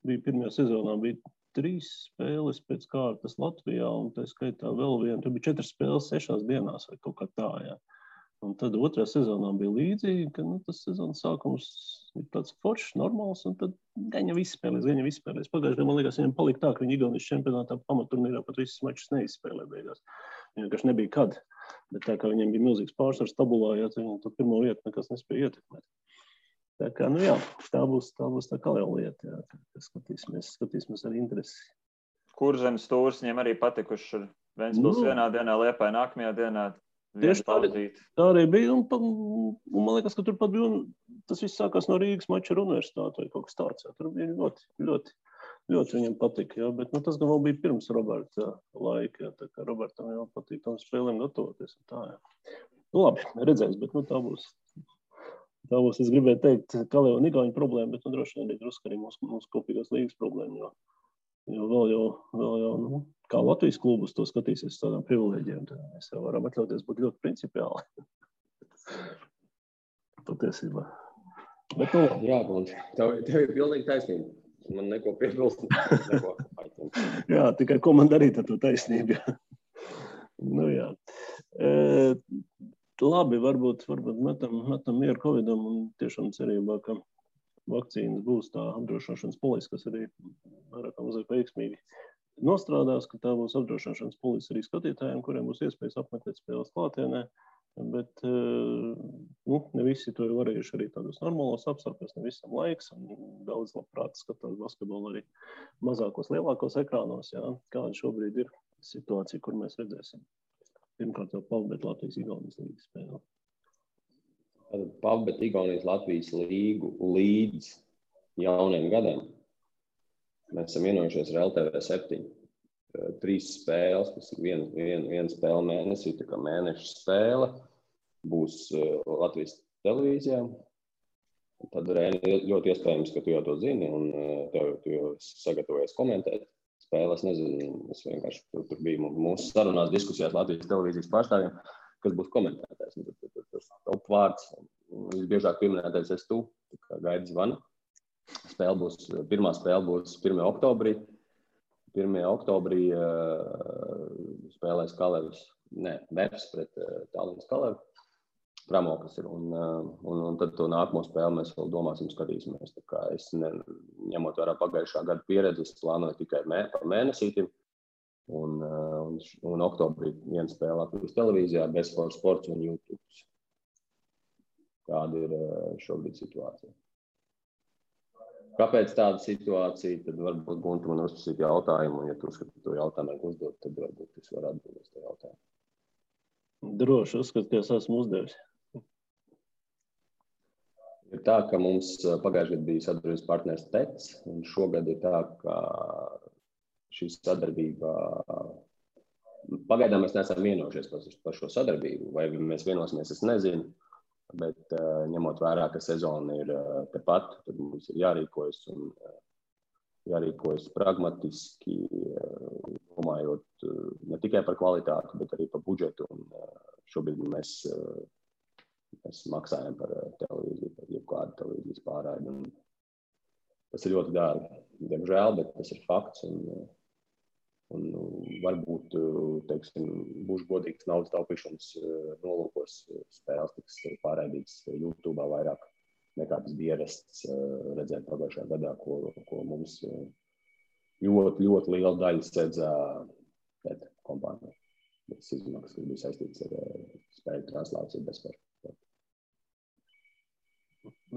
Bija pirmajā sezonā, bija 3 spēles pēc kārtas Latvijā, un tā skaitā vēl viena, tur bija 4 spēles 6 dienās vai kaut kā tā, Un tad otrajā sezonā bija līdzīgi, ka tas sezonas sākums ir tāds foršs, normāls, un tad gaņa viss spēlēs. Pagājušajā, man liekas, viņam palika tā, ka viņi Igaunijas čempionātā pamatturnīrā pat visas mačus neizspēlē beigās. Viņam vienkārši nebija kad. Bet tā kā viņiem bija milzīgs pārsvars tabulā, viņam to pirmo vietu nekas nespēja ietekmēt. Tā kā, tā būs tā Kaleva lieta, skatīsimies ar interesi. Kurzemes stūrs viņiem arī patikuši ar Ventspils vienā dienā, Liepāja nākamajā dienā. Tieši tā arī bija, un man liekas, ka turpat bija, tas viss sākās no Rīgas mača ar universitāti vai kaut kas tāds. Tur bija ļoti viņam patika, bet tas gan vēl bija pirms Roberta laika, tā kā Robertam jau patīk tam spēlēm gatavoties. Labi, redzēs, bet tā būs. Tā būs, es gribēju teikt, Kaleva un Igauņu problēma, bet droši vien arī drusku arī mūsu kopīgās līgas problēma, jo vēl jau, kā Latvijas klubus to skatīsies tādām privilēģiem, tad mēs jau varam atļauties būt ļoti principiāli. Patiesībā. Bet, Jā, Gunti, tev ir pilnīgi taisnība. Man neko piebilst. Jā, tikai ko man darīt ar to taisnību. Jā. Labi, varbūt metam mieru Covidam un tiešām cerībā, ka vakcīnas būs tā apdrošināšanas polise, kas arī vairāk mazāk veiksmīgi nostrādās, ka tā būs apdrošināšanas polise arī skatītājiem, kuriem būs iespējas apmeklēt spēles klātienē, bet ne visi to ir varējuši arī tādos normālos apstākļos, ne visam laiks, un daudz labprāt skatās basketbolu arī mazākos, lielākos ekrānos, kāda šobrīd ir situācija, kur mēs redzēsim. Pirmkārt jau Pavbet Latvijas Igaunijas līgas spēle. Pavbet Igaunijas Latvijas līgu līdz jauniem gadiem. Mēs esam vienojušies ar LTV 7. 3 spēles, tas ir viena spēle mēnesī, tā kā mēneša spēle, būs Latvijas televīzijā. Tad ļoti iespējams, ka tu jau to zini, un tu jau sagatavojies komentēt spēles. Nezinu, es vienkārši tur biju mūsu sarunās diskusijās Latvijas televīzijas pārstāvjiem, kas būs komentētājs. Tas top vārds, visbiežāk pieminētais esi tu, kā gaidi zvana. Pirmā spēle būs 1. oktobrī. 1. oktobrī spēlēs Kalevs, Veps pret Tallinas Kalevu. Tramoklis ir. Un tad to nākamo spēli mēs vēl domāsim, skatīsimies. Tā kā es ņemot vērā pagājušā gada pieredzi, es plānoju tikai par mēnesītim. Un oktobrī viena spēle Latvijas televīzijā, Sports un YouTube. Tāda ir šobrīd situācija. Kāpēc tāda situācija? Tad varbūt Gunta man uzprasīt jautājumu, un ja tu uzskati to jautājumu uzdot, tad varbūt es varu atbildēt to jautājumu. Droši uzskatu, ka es esmu uzdevis. Ir tā, ka mums pagājušajā gadā bija sadarbības partners TEC, un šogad ir tā, ka šī sadarbība, pagaidām mēs neesam vienojušies par šo sadarbību, vai mēs vienosimies, es nezinu, bet ņemot vērā, ka sezona ir tepat, tad mums ir jārīkojas un jārīkojas pragmatiski, domājot ne tikai par kvalitāti, bet arī par budžetu, un šobrīd mēs maksājam par televīziju, par jebkādu televīzijas pārraidi. Tas ir ļoti dārgi, diemžēl, bet tas ir fakts. Un varbūt, teiksim, būšu godīgs naudas taupīšanas nolūkos spēles tiks pārraidītas YouTube vairāk nekā tas bija ierasts redzēt pagājušajā gadā, ko mums ļoti, ļoti liela daļa sēdzā kompānija. Tas izmaksas, kas bija saistīts ar spēļu translāciju bezspēļu.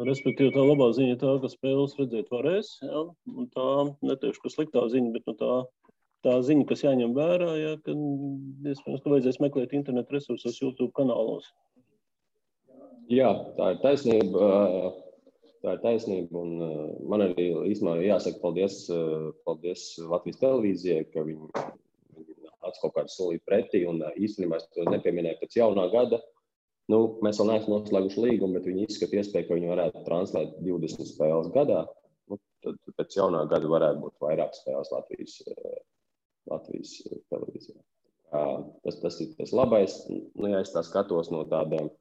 Respektīvi, tā labā ziņa ir tā, ka spēles redzēt varēs, ja? Un tā, neteikšu, ka sliktā ziņa, bet tā ziņa, kas jāņem vērā, ja, ka iespējams, ka vajadzēs meklēt internetu resursos YouTube kanālos. Jā, tā ir taisnība, un man arī īstenībā jāsaka paldies Latvijas televīzijai, ka viņi nāca kaut kādu solīt pretī, un īstenībā es to nepieminēju pēc jaunā gada. Mēs vēl neesam noslēguši līgumu, bet viņi izskata iespēju, ka viņi varētu translēt 20 spēles gadā. Tad pēc jaunā gada varētu būt vairāk spēles Latvijas televīzijā. Tas ir tas labais. Ja es tā skatos no tādiem,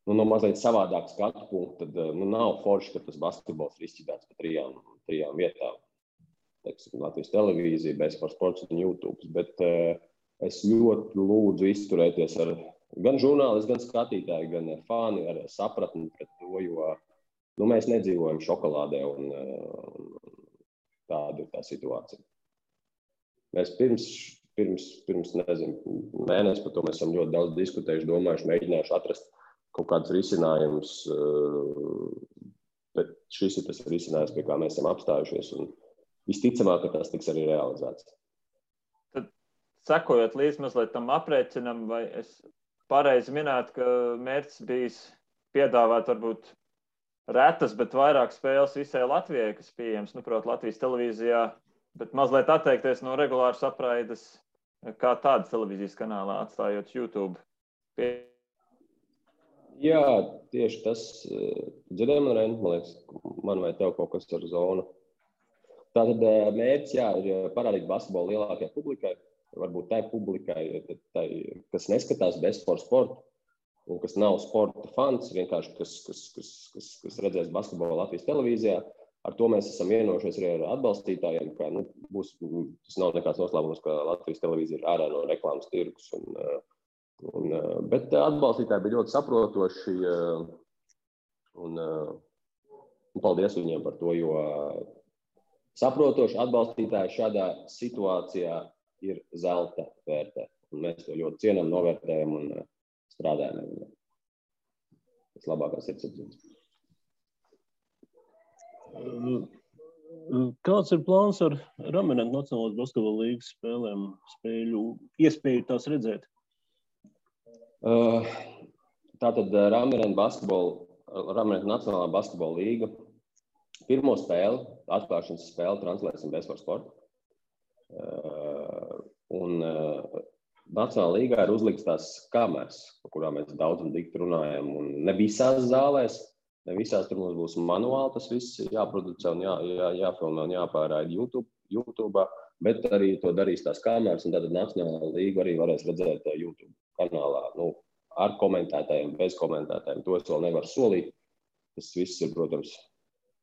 no mazliet savādāk skatu punktu, tad nav forši, ka tas basketbols ir izšķidāts pa trijām vietām. Teiksim, Latvijas televīzija, Sports un YouTube. Bet es ļoti lūdzu izturēties ar gan žurnālisti, gan skatītāji, gan fani ar sapratni pret to, jo mēs nedzīvojam šokolādē, un tāda ir tā situācija. Mēs pirms nezinu, mēnesi par to mēs esam ļoti daudz diskutējuši, domājuši, mēģinājuši atrast kaut kādus risinājumus, bet šis ir tas risinājums, pie kā mēs esam apstājušies, un visticamāk, ka tas tiks arī realizēts. Tad, sekojot līdz mazliet tam aprēķinam, vai es pareizi minētu, ka mērķis bijis piedāvāt varbūt retas, bet vairāk spēles visai Latvijai, kas pieejams, proti Latvijas televīzijā, bet mazliet atteikties no regulāras apraides kā tādas televīzijas kanālā, atstājot YouTube. Jā, tieši tas. Dzirdēju man, Ren, man liekas, man vai tev kaut kas ar zonu. Tātad mērķis, ir parādīt basketbolu lielākajai publikai. Varbūt tai publikai, kas neskatās sportu, un kas nav sporta fans, vienkārši kas redzēs basketbolu Latvijas televīzijā. Ar to mēs esam vienojušies arī ar atbalstītājiem, ka tas nav nekāds noslēpums, ka Latvijas televīzija ir ārā no reklāmas tirgus. Bet atbalstītāji bija ļoti saprotoši, un paldies viņiem par to, jo saprotoši atbalstītāji šādā situācijā ir zelta vērtē. Un mēs to ļoti cienam, novērtējam un strādājam ar viņiem. Tas labākās sirdsapziņas. Kāds ir plāns ar Ramentu Nacionālās basketbola līgas spēlēm, iespēju tās redzēt? Tātad Ramentu Nacionālā basketbola līga pirmo spēli, atklāšanas spēli translēsim Sports. Un Nacionālā līgā ir uzlikts tās kameras, par kurām mēs daudz un dikti runājam. Un ne visās zālēs, ne visās tur mums būs manuāli, tas viss jāproducē un jāfilmē un jāpārraida YouTube, bet arī to darīs tās kameras, un tātad Nacionālā līga arī varēs redzēt YouTube kanālā, ar komentētājiem, bez komentētājiem. To es vēl nevaru solīt. Tas viss ir, protams,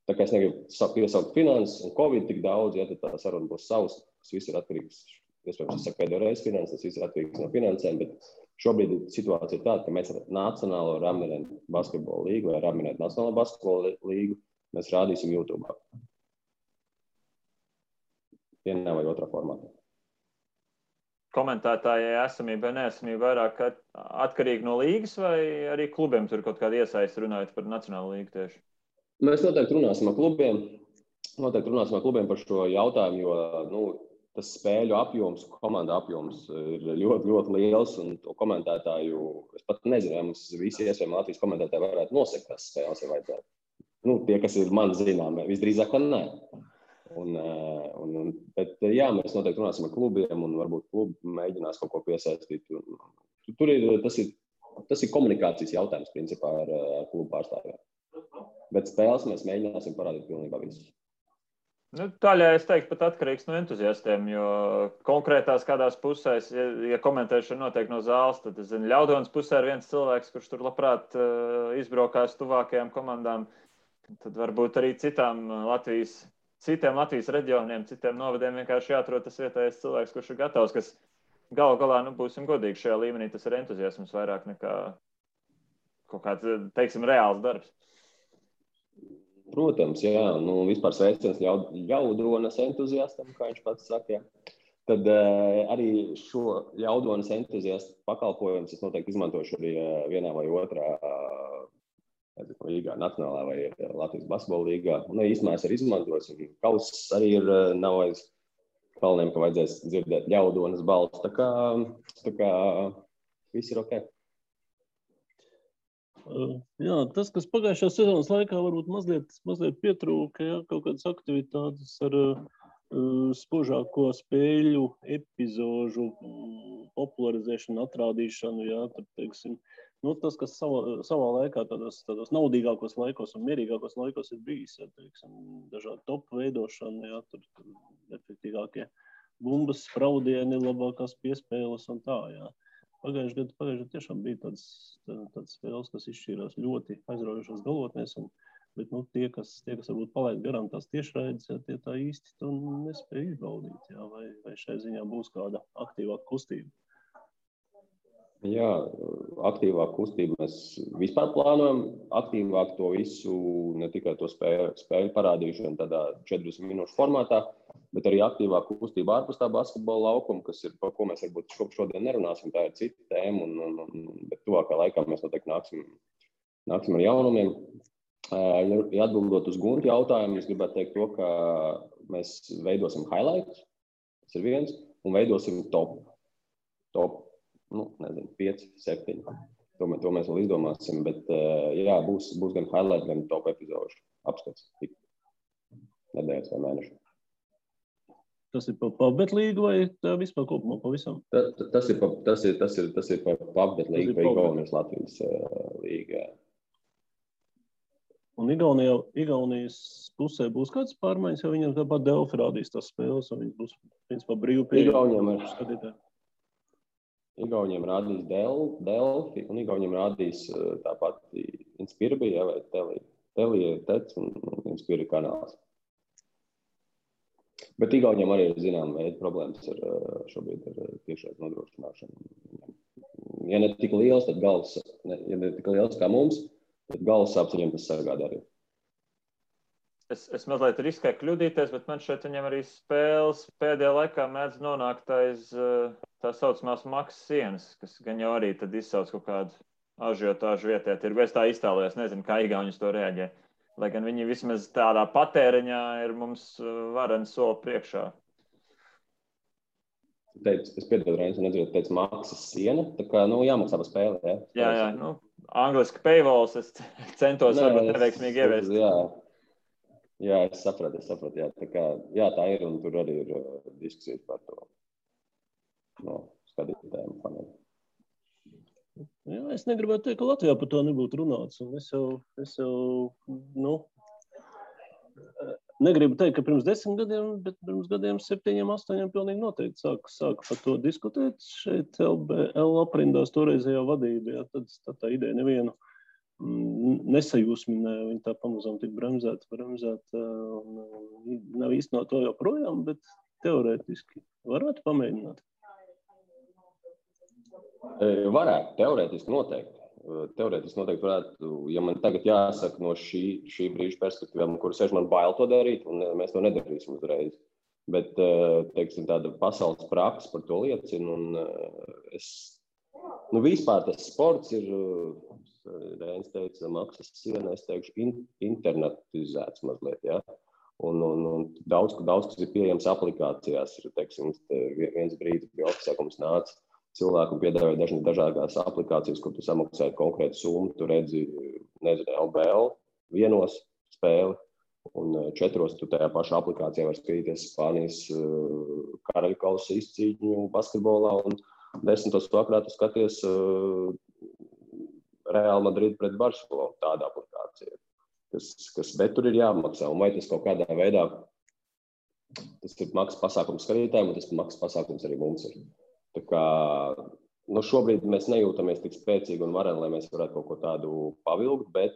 tā kā es negribu piesaukt finanses un Covid tik daudz, ja tad tā saruna būs savs, tas viss ir atkarīgs, iespējams, es saku pēdējo reizi finanses, tas viss ir atkarīgs no finansēm, bet Šobrīd situācija ir tāda, ka mēs ar Nacionālo Ramineru basketbolu līgu vai Ramineru Nacionālo basketbolu līgu mēs rādīsim YouTube. Vienā vai otrā formātā. Komentētājai esamība vai neesamība vairāk atkarīgi no līgas vai arī klubiem tur kaut kāda iesaista runājot par Nacionālo līgu tieši? Mēs noteikti runāsim ar klubiem par šo jautājumu, jo tas spēļu apjoms, komanda apjoms ir ļoti, ļoti liels, un to komentētāju, es pat nezinu, vai mums visi iespējami Latvijas komentētāji varētu nosekt tās spēles, ja vajadzētu. Tie, kas ir man zināmi, visdrīzāk, ka nē. Bet jā, mēs noteikti runāsim ar klubiem, un varbūt klubi mēģinās kaut ko piesaistīt. Tas ir komunikācijas jautājums, principā, ar klubu pārstāvjiem. Bet spēles mēs mēģināsim parādīt pilnībā visus. Daļai es teiktu pat atkarīgs no entuziastiem, jo konkrētās kādās pusēs, ja komentēšana notiek no zāles, tad, es zinu, Ļaudonas pusē ir viens cilvēks, kurš tur labprāt izbraukās tuvākajām komandām, tad varbūt arī citiem Latvijas reģioniem, citiem novadiem vienkārši jāatrod tas vietējais cilvēks, kurš ir gatavs, kas galu galā, būsim godīgi šajā līmenī, tas ir entuziasms vairāk nekā kaut kāds, teiksim, reāls darbs. Protams, jā, vispār sveiciens Ļaudonas entuziastam, kā viņš pats saka. Jā. Tad arī šo Ļaudonas entuziastu pakalpojumus es noteikti izmantošu arī vienā vai otrā līgā, Nacionālā vai Latvijas basketbola līgā. Un īstenībā es arī izmantosim. Kauss arī nav aiz kalniem, ka vajadzēs dzirdēt Ļaudonas balstu. Tā kā viss ir ok. Jā, tas, kas pagājušās sezonas laikā varbūt mazliet pietrūka, ja, kaut kādas aktivitātes ar spožāko spēļu epizožu popularizēšanu, atrādīšanu, jā, tad, teiksim, tas, kas savā laikā tādos naudīgākos laikos un mierīgākos laikos ir bijis, ja, teiksim, dažādi topu veidošana, jā, tur efektīgākie bumbas, spraudieni, labākās piespēles un tā, jā. Pagājušajā gadā tiešām bija tādas spēles, kas izšķīrās ļoti aizraujošās galotnēs, bet tie, kas varbūt palaid garām tās tiešraides, ja, tie tā īsti to nespēja izbaudīt, ja, vai šai ziņā būs kāda aktīvāka kustība? Jā, aktīvāka kustība. Mēs vispār plānojam aktīvāk to visu, ne tikai to spēļu parādīšanu tādā 40 minūšu formātā, bet arī aktīvāk kustība ārpus tā basketbola laukuma, kas ir, par ko mēs varbūt šodien nerunāsim, tā ir cita tēma, bet tuvākā laikā mēs noteikti nāksim ar jaunumiem. Ja atbildot uz Gunti jautājumu, es gribētu teikt to, ka mēs veidosim highlights, tas ir viens, un veidosim top 5, 7. To mēs vēl izdomāsim, bet jā, būs gan highlight, gan top epizodu apskats nedēļas vai mēnešu. Tas ir pa PubBet līgu vai tā vispār kopumā pavisam? Tas ir pa PubBet līgu vai Igaunijas Latvijas līga. Un Igaunijas pusē būs kāds pārmaiņas, jo viņam tāpat Delfi rādīs tās spēles, un viņas būs, principā, brīvi pieejami skatītāji. Igauniem rādīs Delfi, un Igauniem rādīs tāpat Inspirbija vai Telija Tec un Inspirija kanāls. Bet Igauniem arī ir zināma veida problēmas šobrīd ar tiešais nodrošināšanu. Ja ne tik liels, tad ja ne tik liels kā mums, tad galvas sāpes viņam tas sagādā arī. Es mazliet riskēju kļūdīties, bet man šeit viņam arī spēles pēdējā laikā mēdz nonākt aiz tā saucamās maksas sienas, kas gan jau arī tad izsauc kaut kādu ažiotāžu vietē. Es tā iztēlojos, nezinu, kā Igauni uz to reaģē. Lai gan viņi vismaz tādā patēriņā ir mums vareni soli priekšā. Es piedodu, Reinis, un teicu maksas siena, tā kā, jāmaksā par spēli, jā? Jā, angliski paywalls, es centos varbūt neveiksmīgi ieviest. Jā, es sapratu, jā. Tā kā, jā, tā ir, un tur arī ir diskusijas par to skatītājiem faniem. Jā, es negribētu teikt, ka Latvijā par to nebūtu runāts, un es jau negribu teikt, ka pirms 10 gadiem, bet pirms gadiem 7, 8 pilnīgi noteikti sāka par to diskutēt šeit LBL aprindās toreizējā vadībā, jā, tad tā ideja nevienu nesajūsminēja, viņa tā pamazām tik bremzēta, nav īsti no to joprojām, bet teorētiski varētu pamēģināt. Varētu, teorētiski noteikti. Teorētiski noteikti varētu, ja man tagad jāsaka no šī brīža perspektīvām, kur sēž man bail to darīt, un mēs to nedarīsim uzreiz. Bet, teiksim, tāda pasaules praksa par to liecina, un vispār tas sports ir, Rēns teica, maksas siena, es teikšu, internetizēts mazliet, ja? Un daudz, kas ir pieejams aplikācijās, teiksim, viens brīdis bija oficiākums nāca, cilvēku piedāvāja dažādās aplikācijas, kur tu samaksāji konkrētu summu, tu redzi, nezinu, LBL vienos spēli, un 4 tu tajā pašā aplikācijā var skatīties Spānijas karaļu kausa izcīņu basketbolā, un 10. vakarā tu skaties Real Madrid pret Barcelonu, tāda aplikācija, bet tur ir jāmaksā, un vai tas kaut kādā veidā, tas ir maksas pasākums skatītājiem, un tas maksas pasākums arī mums ir. Tā kā, šobrīd mēs nejūtamies tik spēcīgi un vareni, lai mēs varētu kaut ko tādu pavilkt, bet,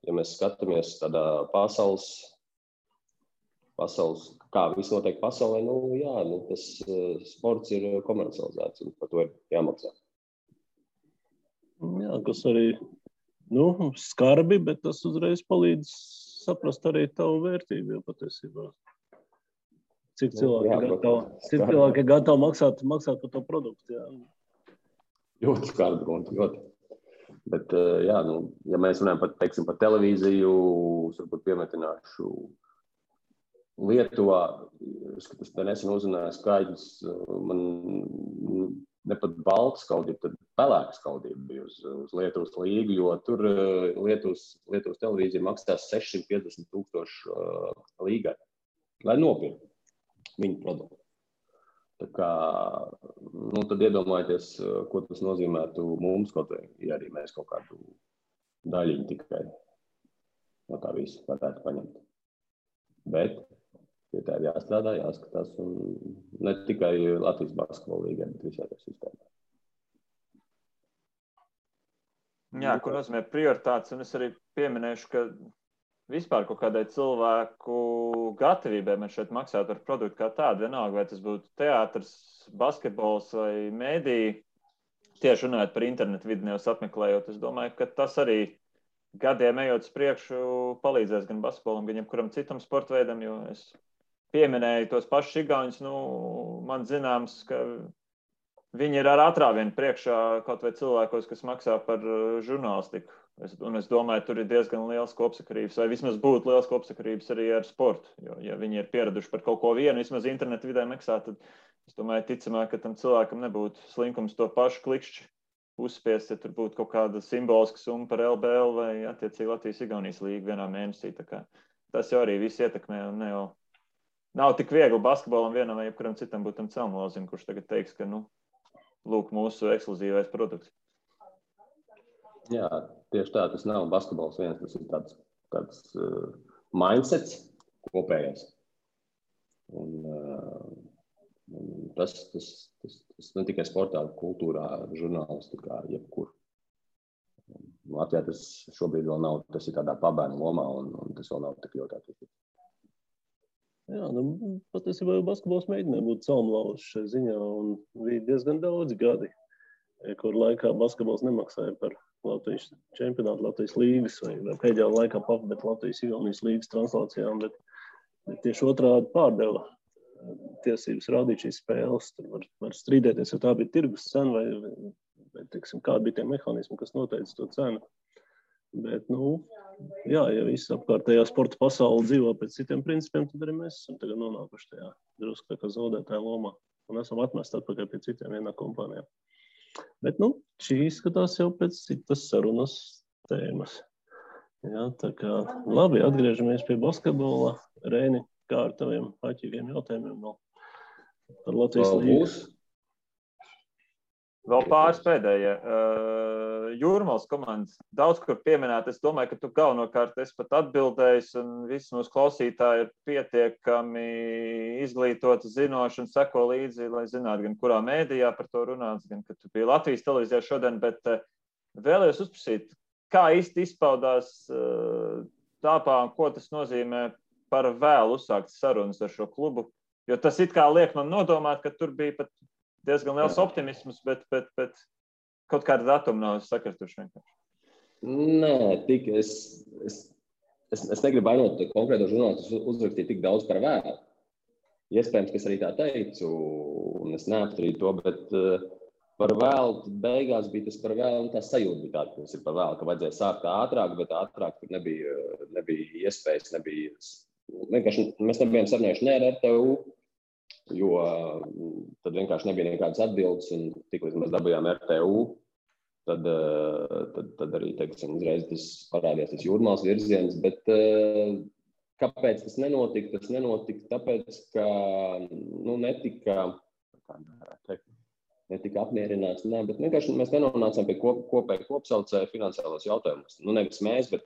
ja mēs skatāmies tādā pasaules, kā viss notiek pasaulē, tas sports ir komercializēts un par to ir jāmaksā. Jā, kas arī, skarbi, bet tas uzreiz palīdz saprast arī tavu vērtību, jo patiesībā. Cik cilvēki ir gatavi maksāt par to produktu, jā. Ļoti skarbi, ļoti. Bet, ja mēs runājam par televīziju, varbūt piemetināšu Lietuvā, es te nesen uzzināju skaidrs, man ne pat balta skaudība, tad pelēka skaudība bija uz Lietuvas līgu, jo tur Lietuvas televīzija maksās 650,000 līgai, lai nopirkt viņu produktu. Tā kā, tad iedomājieties, ko tas nozīmētu mums, kaut vai, ja arī mēs kaut kādu daļiņu tikai no tā visu varētu paņemt. Bet pie tā ir jāstrādā, jāskatās, un ne tikai Latvijas basketbola līgai, bet visā tā sistēmā. Jā, ko nozīmē prioritātes, un es arī pieminēšu, ka vispār kaut kādai cilvēku gatavībai man šeit maksāt par produktu kā tādu, vienalga, vai tas būtu teātrs, basketbols vai mēdī, tieši runājot par internetu vidi nevis apmeklējot, es domāju, ka tas arī gadiem ejot uz priekšu palīdzēs gan basketbolam, gan jebkuram citam sporta veidam, jo es pieminēju tos pašus igauņus, man zināms, ka viņi ir ar atrāvienu priekšā kaut vai cilvēkos, kas maksā par žurnālistiku. Un es domāju, tur ir diezgan liels kopsakarības, vai vismaz būtu liels kopsakarības arī ar sportu. Jo, ja viņi ir pieraduši par kaut ko vienu, vismaz internetu vidē maksāt, tad es domāju, ticamāk, ka tam cilvēkam nebūtu slinkums to pašu klikšķi uzspiest, ja tur būtu kaut kāda simboliska summa par LBL vai attiecīgi Latvijas-Igaunijas līgu vienā mēnesī. Tā kā tas jau arī viss ietekmē, un nav tik viegli basketbolam vienam vai jebkuram citam būt tam celmlozim, kurš tagad teiks, ka, lūk, mūsu ekskluzīvais produkts. Jā, tieši tā, tas nav basketbols viens, tas ir tāds mindsets kopējais. Un tas ne tikai sportā, kultūrā, žurnālistikā, jebkur. Latvijā tas šobrīd vēl nav, tas ir tādā pabērnu lomā, un tas vēl nav tik ļoti attīstīts. Jā, patiesībā basketbols mēģināja būt celmlauzs šai ziņā, un bija diezgan daudz gadi, kur laikā basketbols nemaksāja par Latvijas čempionātu, Latvijas līgas vai pēdējā laikā bet Latvijas-Igaunijas līgas translācijām, bet tieši otrādi pārdeva tiesības rādīt šīs spēles. Tur var strīdēties, jo tā bija tirgus cena vai teiksim, kādi bija tie mehānismi, kas noteica to cenu. Bet, jā, ja viss apkārtējā sporta pasaule dzīvo pēc citiem principiem, tad arī mēs esam tagad nonākuši tajā drusku tā kā zaudētāja lomā un esam atmesti atpakaļ pie citiem vienā kompānijā. Bet, šī izskatās jau pēc citas sarunas tēmas. Jā, tā kā labi, atgriežamies pie basketbola. Reini, kā ar taviem āķīgiem jautājumiem vēl par Latvijas līgu? Vēl pāris pēdējie. Jūrmals komandas daudz kur pieminēt. Es domāju, ka tu galvenokārt esi pat atbildējis, un visi mūsu klausītāji ir pietiekami izglītoti, zinoši un seko līdzi, lai zinātu, gan kurā mēdījā par to runāts, gan, ka tu biji Latvijas televīzijā šodien, bet vēlējos uzprasīt, kā īsti izpaudās tāpā, un ko tas nozīmē par vēlu uzsākt sarunas ar šo klubu, jo tas it kā liek man nodomāt, ka tur bija pat diezgan liels optimisms, bet kaut kāda datuma nav sakrituši vienkārši? Nē, es negribu vainot konkrēto žurnālistu uzrakstīt tik daudz par vēlu. Iespējams, ka es arī tā teicu, un es neapstrīdu to, bet par vēlu beigās bija tas par vēlu, un tā sajūta bija tāda, ka tas ir par vēlu, ka vajadzēja sākt ātrāk, bet ātrāk tur nebija iespējas, vienkārši mēs nebijām sarunājuši ne ar RTU, jo tad vienkārši nebija nekādas atbildes, un tik līdz mēs dabījām RTU, tad arī, teiksim, uzreiz tas parādījās tas Jūrmālas virziens, bet kāpēc tas nenotika? Tas nenotika tāpēc, ka netika apmierināts, bet vienkārši mēs nenonācām pie kopēja kopsaucēja finansiālos jautājumus. Nevis mēs, bet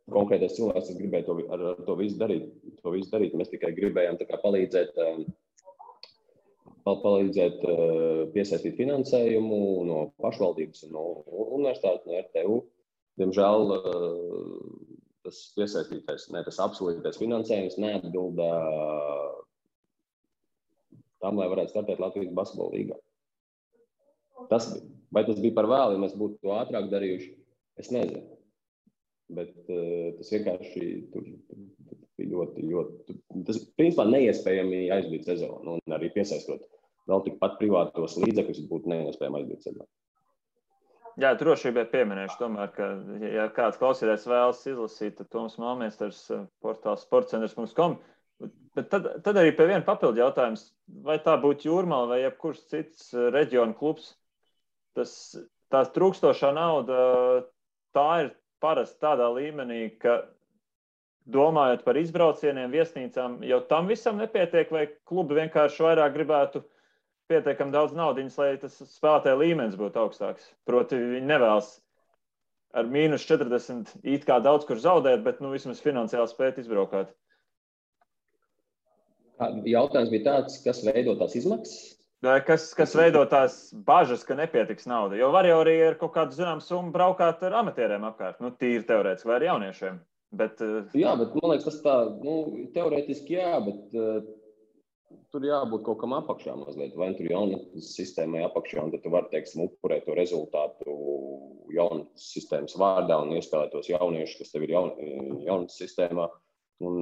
konkrētais cilvēks, kas gribēja to visu darīt. Mēs tikai gribējām tā kā palīdzēt piesaistīt finansējumu no pašvaldības un no universitātes, no RTU. Diemžēl tas tas apsolītais finansējums neatbilda tam, lai varētu startēt Latvijas basketbola līgā. Vai tas bija par vēlu, ja mēs būtu to ātrāk darījuši, es nezinu. Bet tas vienkārši bija ļoti, tas principā neiespējami aizbīt sezonu, un arī piesaistot vēl tikpat privātos līdzekļus būtu neiespējami aizbīt sezonu. Jā, drošībai pieminēšu tomēr, ka, ja kāds klausītājs vēlas izlasīt, tad Toms Malmiesters portāls sportcentrs.com. Bet tad arī pie viena papildu jautājums, vai tā būtu Jūrmala vai jebkurš cits reģiona klubs, tā trūkstošā nauda, tā ir parasti tādā līmenī, ka domājot par izbraucieniem, viesnīcām, jau tam visam nepietiek, vai klubi vienkārši vairāk gribētu pietiekami daudz naudiņas, lai tas spēlētāja līmenis būtu augstāks. Proti, viņi nevēlas ar -40 it kā daudz kur zaudēt, bet vismaz finansiāli spēt izbraukāt. Jautājums bija tāds, kas veido tās izmaksas? Kas veido tās bažas, ka nepietiks nauda? Jo var jau arī ar kaut kādu zināmu summu braukāt ar amatieriem apkārt, tīri teorētiski vai ar jauniešiem. Bet, jā, bet man liekas, tas tā, teorētiski jā, bet tur jābūt kaut kam apakšā mazliet. Vai tur jaunatnes sistēmai apakšā, un tad tu vari, teiksim, upurēt to rezultātu jaunatnes sistēmas vārdā un iespēlēt tos jauniešus, kas tev ir jaunatnes sistēmā, un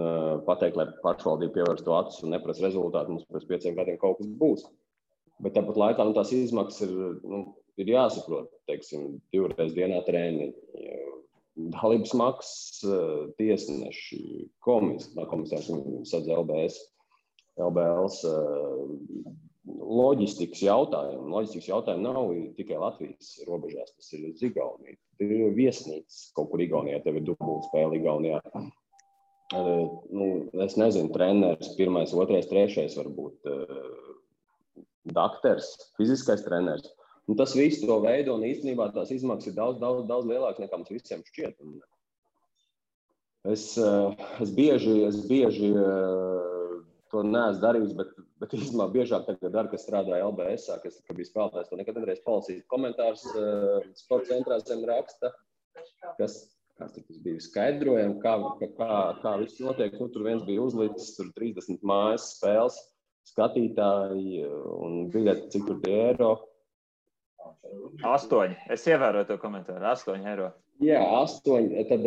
pateikt, lai pašvaldība pievērš to acis un neprasa rezultātu, mums pēc 5 gadiem kaut kas būs. Bet tāpat laikā tās izmaksas ir jāsaprot, teiksim, 2 reizes dienā treniņi, dalības maksas, tiesneši, komisārs sadz LBLs loģistikas jautājumi. Loģistikas jautājumi nav tikai Latvijas robežās, tas ir uz Igauniju. Tur ir viesnīcas kaut kur Igaunijā, tev ir dubultspēle Igaunijā. Es nezinu, treneris, 1., 2., 3. varbūt dakters, fiziskais treneris. Tas viss to veido, un īstenībā tās izmaksas ir daudz lielākas nekā mums visiem šķiet. Es bieži to neesmu darījis, bet īstenībā biežāk tagad daru, kas strādāja LBS-ā, kas bija spēlētājs, to nekad nevarēs palasīt komentārus sporta centrā zem raksta, kas tas bija skaidrojami, kā viss notiek. Tur viens bija uzlicis, tur 30 mājas spēles, skatītāji un biļeti, cik tur tie eiro. 8. Es ievēroju to komentāru. 8 eiro. Jā, 8. Tad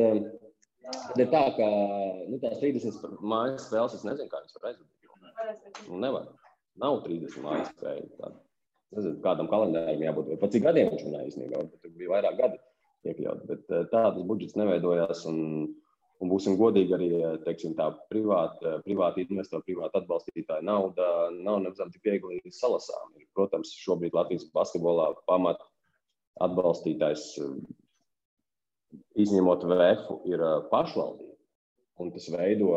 ir tā, ka tās 30 mājas spēles, es nezinu, kā viņas var aizvadīt. Nevar. Nav 30 mājas spēļu. Nezinu, kādam kalendāram jābūt. Pat cik gadiem viņš runāja īstenībā. Tur bija vairāk gadi iekļaut. Bet tādas budžets neveidojās. Un būsim godīgi arī, teiksim, tā privāti investori, privāti atbalstītāji nauda nav nemazām tik viegli salasām. Protams, šobrīd Latvijas basketbolā pamat atbalstītājs, izņemot VF, ir pašvaldība. Un tas veido,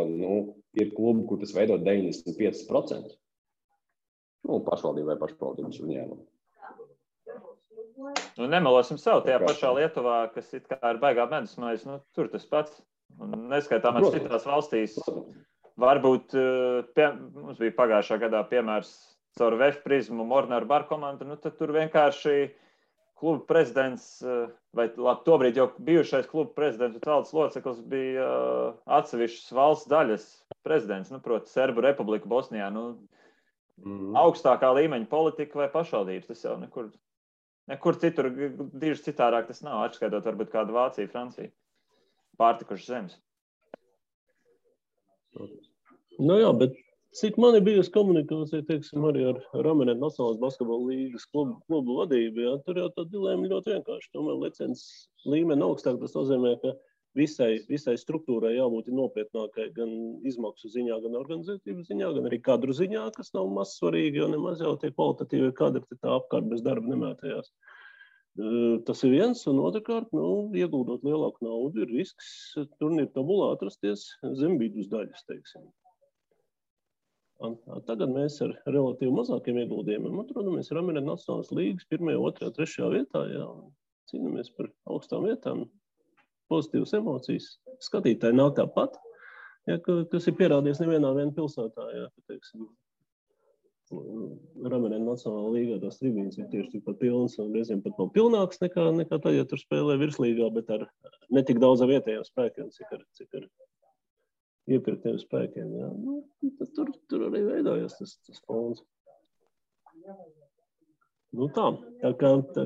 ir klubi, kur tas veido 95%. Pašvaldība vai pašvaldības uzņēmuma. Nemelosim sev, tajā pašā Lietuvā, kas it kā ir baigā medus maize, tur tas pats. Un neskaitāmās citās valstīs. Varbūt mums bija pagājušā gadā piemērs caur VF prizmu Mornar Bar komandu, tad tur vienkārši kluba prezidents, vai tobrīd jau bijušais kluba prezidents un valdes loceklis bija atsevišķas valsts daļas prezidents, proti Serbu Republika Bosnijā. Augstākā līmeņa politika vai pašvaldības, tas jau nekur Nekur citur diži citārāk tas nav, atskaitot varbūt kādu Vāciju, Franciju. Pārtikuši zemes. Nu jā, bet cik man ir bijusi komunikācija, teiksim, arī ar Ramenet Nacionālās basketbola līgas klubu vadību, jā, tur jau tā dilēma ļoti vienkārši. Tomēr licences līmeni augstāk, tas nozīmē, ka visai struktūrai jābūt nopietnākai gan izmaksu ziņā, gan organizatīvas ziņā, gan arī kadru ziņā, kas nav maz svarīgi, jo nemaz jau tie kvalitatīvi kadri tā apkārt bez darba nemētējās. Tas ir viens, un otrkārt, ieguldot lielāku naudu, ir risks turnīru tabulā atrasties zem vidus daļas, teiksim. Tagad mēs ar relatīvi mazākiem ieguldījumiem atrodamies Ramenet Nacionālās līgas 1., 2., 3. vietā, jā, un cīnamies par augstām vietām. Pozitīvas emocijas. Skatītāji nav tāpat, ja, kas ir pierādījies nevienā pilsētā. Ja, teiksim, Ramenet Nacionālā līgā tās tribīnes ir tieši tikpat pilnas un reizēm pat vēl pilnāks nekā tad, ja tur spēlē virslīgā, bet ar netik daudz vietējiem spēkiem, cik ar iepirktiem spēkiem. Ja. Tur arī veidojās tas fons. Tā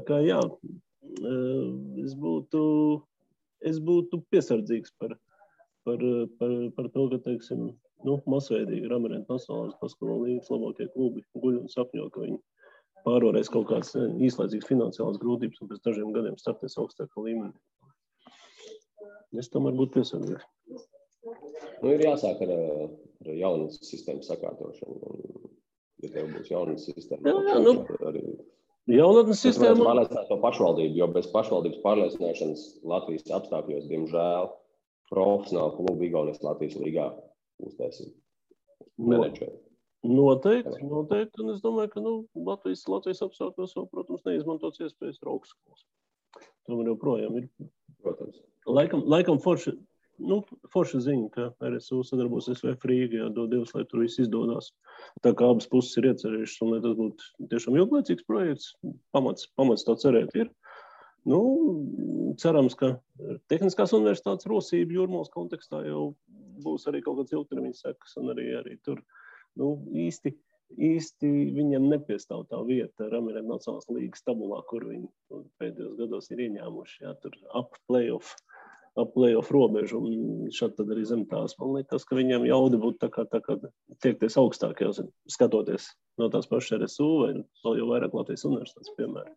kā jā, es būtu piesardzīgs par to, ka, teiksim, masveidīgi Ramenet Nacionālās basketbola līgas labākie klubi guļ un sapņo, ka viņi pārvarēs kaut kādas īslaicīgas finansiālas grūtības un pēc dažiem gadiem startēs augstākā līmenī. Es tomēr būtu piesardzīgs. Ir jāsāk ar jaunas sistēmas sakārtošanu. Ja tev būs jaunas sistēmas, arī jaunatnes sistēma pārliecināt to pašvaldību, jo bez pašvaldības pārliecināšanas Latvijas apstākļos, diemžēl, profesionāli klubi Igaunijas Latvijas līgā uztaisīt menedžeri. Noteikti, un es domāju, ka Latvijas apstākļos jau, protams, neizmantots iespējas ar augstskolas. Tomēr joprojām ir. Protams. Laikam forša ziņa, ka RSU sadarbosies VF Rīgā, dod Dievs, lai tur viss izdodās. Tā kā abas puses ir iecerējušas, un lai tas būtu tiešām ilglaicīgs projekts, pamats tā cerēt ir. Cerams, ka Tehniskās universitātes rosība Jūrmālas kontekstā jau būs arī kaut kāds ilgtermiņa sekas, un arī tur īsti viņam nepiestāv tā vieta Ramenet Nacionālās līgas tabulā, kur viņi pēdējos gados ir ieņēmuši, jā, tur ap playoff robežu, un šad tad arī zem tās. Man liekas, ka viņam jaudi būtu tā kā tiekties augstāk, jau skatoties no tās pašas RSU vai vēl jau vairāk Latvijas universitātes, piemēram.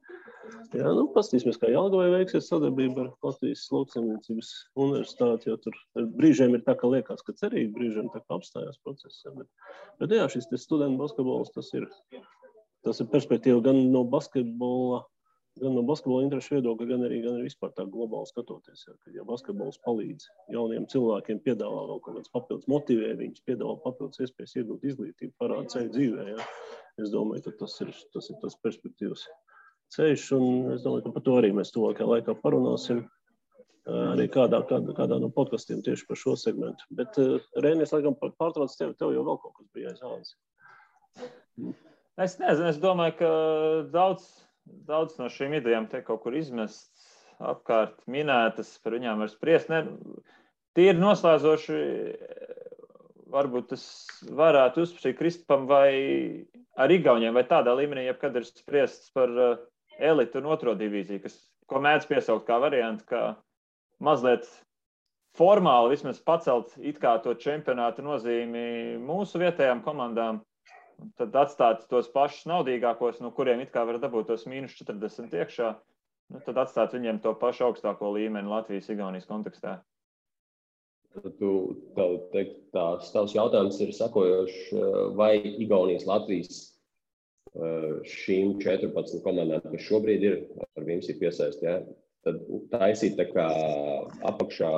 Jā, pastīsimies, kā Jelgavai veiksies sadarbība ar Latvijas lauksaimniecības universitāti, jo tur brīžiem ir tā, ka liekas, ka cerīgi, brīžiem tā kā apstājās process. Bet jā, šis studentu basketbols, tas ir perspektīva gan no basketbola interešu viedokļa, gan arī vispār tā globāli skatoties. Ja basketbols palīdz jauniem cilvēkiem, piedāvā vēl kaut kāds papildus motivē, viņus piedāvā papildus iespējas iegūt izglītību, parāda ceļu dzīvē. Ja. Es domāju, ka tas ir tas perspektīvas ceļš, un es domāju, ka par to arī mēs tuvākajā laikā parunāsim arī kādā no podkastiem tieši par šo segmentu. Bet, Reini, es laikam pārtrauc tev jau vēl kaut kas bija aizāvis. Es nezinu, es domāju, ka daudz no šīm idejām te kaut kur izmests, apkārt minētas, par viņām var spriest. Tīri noslēdzoši, varbūt tas varētu uzprasīt Kristupam vai ar Igauniem, vai tādā līmenī, jebkad ir spriests par elitu un otro divīziju, ko mēdz piesaukt kā variantu, kā mazliet formāli vismaz pacelt it kā to čempionātu nozīmi mūsu vietējām komandām. Tad atstāt tos pašus naudīgākos, no kuriem it kā var dabūt tos -40 iekšā, tad atstāt viņiem to pašu augstāko līmeni Latvijas-Igaunijas kontekstā. Tavs jautājums ir sakojošs, vai Igaunijas Latvijas šīm 14 komandām, kas šobrīd ir, ar viņiem ir piesaist, ja, tad taisīt tā kā apakšā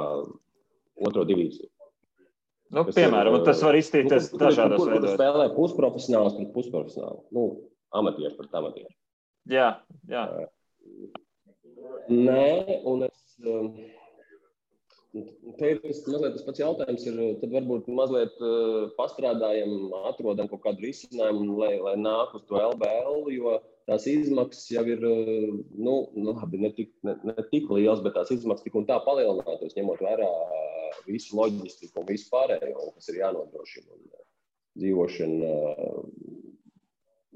otro divīziju. Piemēram, tas var izstīties dažādos veidos. Kur spēlē pusprofesionāls pret pusprofesionālu? Amatieši pret amatieši. Jā. Nē, un te ir mazliet tas pats jautājums, tad varbūt mazliet pastrādājam, atrodam kaut kādu risinājumu, lai nāk uz to LBL, jo tās izmaksas jau ir, ne tik liels, bet tās izmaksas tik un tā palielinātos, ņemot vērā visu loģistiku un visu pārējo, kas ir jānodrošina. Dzīvošana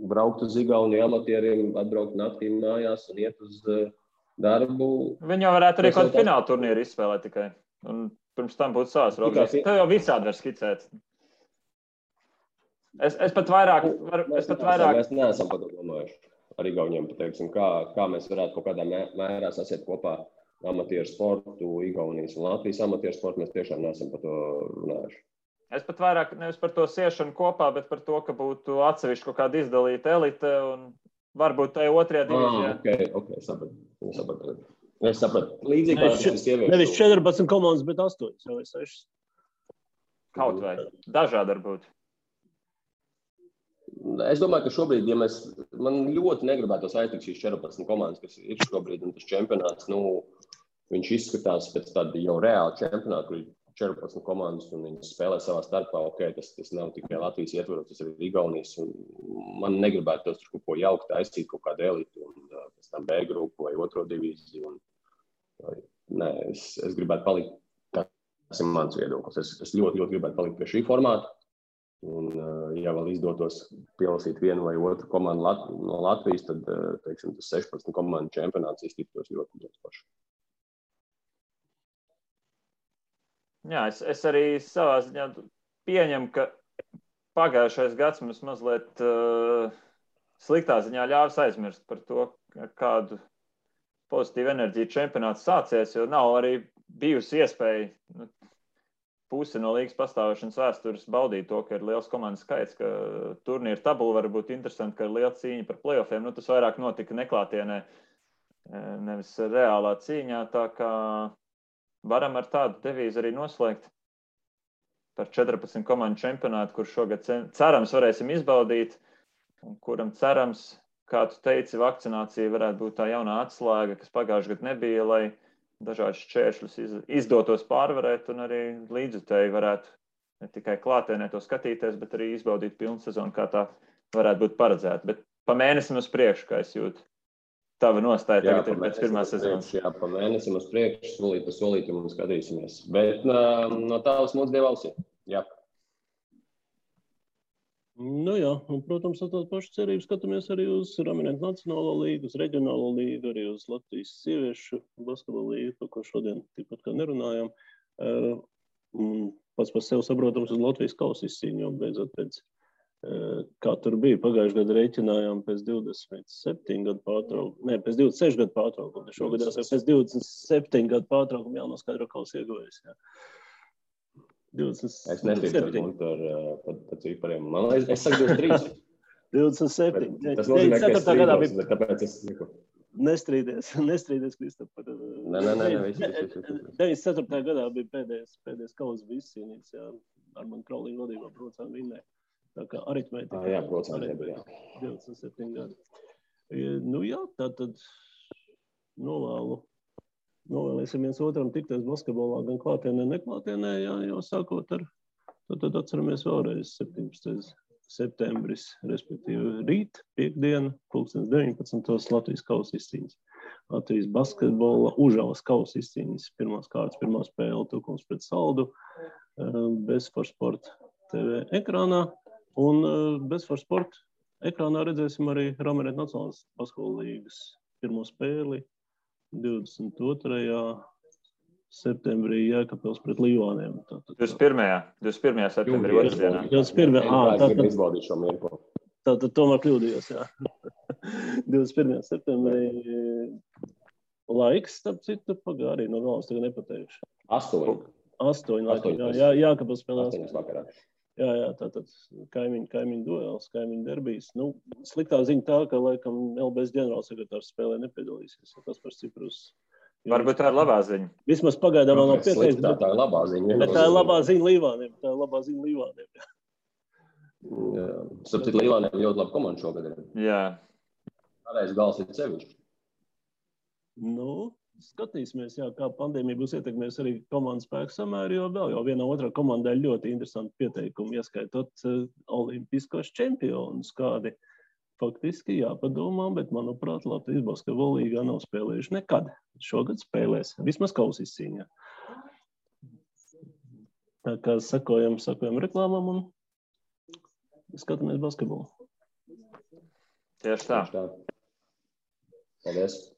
braukt uz Igauniju amatieriem, atbraukt naktī mājās un iet uz darbu. Viņi jau varētu arī kaut fināla turnīru izspēlēt tikai. Un pirms tam būtu savas robežas. Tev jau visādi var skicēt. Es pat vairāk... Mēs neesam par to domājuši. Ar Igauniem pateiksim, kā mēs varētu kaut kādā mērā sasiet kopā amatieru sportu, Igaunijas un Latvijas amatieru sportu. Mēs tiešām neesam par to runājuši. Es pat vairāk nevis par to siešanu kopā, bet par to, ka būtu atsevišķi kaut kāda izdalīta elite un varbūt tajā otrajā divīzijā. Ok, sapratu. Es sapratu. Līdzīgi kā šis sieviešu. Nevis 14 komandas, bet 8 vai 6. Kaut vai. Dažādi varbūt. Es domāju, ka šobrīd, ja man ļoti negribētos aiztikt šīs 14 komandas, kas ir šobrīd, un tas čempionāts, viņš izskatās pēc tāda jau reāla čempionāta, kur ir 14 komandas, un viņi spēlē savā starpā. Ok, tas nav tikai Latvijas ietvaros, tas ir Igaunijas, un man negribētos tur kaut ko jaukt, aizsīt kaut kādu elitu, un pēc tam B grupu vai otro divīziju. Nē, es gribētu palikt, tas ir mans viedoklis. Es ļoti, ļoti gribētu palikt pie šī formāta. Un, ja vēl izdotos pielasīt vienu vai otru komandu no Latvijas, tad, teiksim, tas 16 komandu čempionāts iztiktos ļoti, ļoti paši. Jā, es arī savā ziņā pieņemu, ka pagājušais gads mums mazliet sliktā ziņā ļāvis aizmirst par to, kādu pozitīvu enerģiju čempionāts sācies, jo nav arī bijusi iespēja pusi no līgas pastāvēšanas vēstures baudīt to, ka ir liels komandas skaits, ka turnīra tabula var būt interesanti, ka ir liela cīņa par playoffiem. Tas vairāk notika neklātienē, nevis reālā cīņā, tā kā varam ar tādu devīzi arī noslēgt par 14 komandu čempionātu, kur šogad cerams varēsim izbaudīt, un kuram cerams, kā tu teici, vakcinācija varētu būt tā jaunā atslēga, kas pagājušajā gadā nebija, lai dažādas šķēršļus izdotos pārvarēt, un arī līdzjutēji varētu ne tikai klātienē to skatīties, bet arī izbaudīt pilnu sezonu, kā tā varētu būt paredzēta. Bet pa mēnesim uz priekšu, kā es jūtu, tava nostāja tagad ir pēc pirmās sezonas. Jā, pa mēnesim uz priekšu, solīt pa solītim un skatīsimies. Bet no tālas mūsu dievausiem. Jā. Jā, un, protams, ar tādu pašu cerību skatāmies arī uz Raminieku Nacionālo līgu, uz Reģionālo līgu, arī uz Latvijas sieviešu basketbola līgu, par ko šodien tikpat kā nerunājām. Pats par sevi saprotams uz Latvijas kausa izcīņu, jo beidzot pēc, kā tur bija, pagājušajā gadu rēķinājām pēc 27 gadu pārtraukumu, ne, pēc 26 gadu pārtraukumu, šogad jau pēc 27 gadu pārtraukumu jānoskaidro kausa ieguvējas, jā. 27. Es netīdu par cipariem. Man liekas, es saku 23. 27. Tas nozīmē, ka es strīdos, bet tāpēc es saku. Nestrīdies, Kristap. Nē, 94. gadā bija pēdējais kausa bija izcīnīts, jā. Armand Kraulīna vadībā procām vinnē. Tā kā aritmētika. Jā, procām nebija. 27 gadi. Jā, tātad novēlēsim viens otram tikties basketbolā gan klātienē, neklātienē, jā, jau sākot ar, tad atceramies vēlreiz 17. septembris, respektīvi rīt, piekdiena, 19. Latvijas kausa izcīņas. Latvijas basketbola Užavas kausa izcīņas. Pirmās kārtas, pirmā spēle, Tukums pret Saldu, Bezfor Sport TV ekrānā, un Bezfor Sport ekrānā redzēsim arī Raminieku Nacionālās basketbola līgas pirmo spēli 22. septembrī Jēkabpils pret Līvāniem. 21. septembrī otrdienā. 21. Tātad tomēr kļūdījos, jā. 21. septembrī laiks, starp citu, arī no galas tagad nepateikšu. 8 laikam, jā, Jēkabpils spēlē 8 vakarā. Jā, tātad kaimiņu duels, kaimiņu derbijas. Sliktā ziņa tā, ka laikam LBS ģenerālsekretārs spēlē nepiedalīsies. Tas par Ciprus. Varbūt tā ir labā ziņa. Vismaz pagaidām vēl nav pieteikts. Tā ir labā ziņa. Bet tā ir labā ziņa Līvāniem. Jā. Sapcīt, Līvāniem ļoti labi komanda šogad ir. Jā. Pārējais gals ir sevišķi. Skatīsimies, jā, kā pandēmija būs ietekmējusi arī komandas spēku samēru, jo vienā otrā komandai ļoti interesanti pieteikumi, ieskaitot olimpiskos čempionus, kādi faktiski jāpadomā, bet, manuprāt, Latvijas basketbola līgā nav spēlējuši nekad. Šogad spēlēs, vismaz kausa izcīņā. Tā kā sakojam reklāmām un skatāmies basketbolu. Tieši tā. Paldies!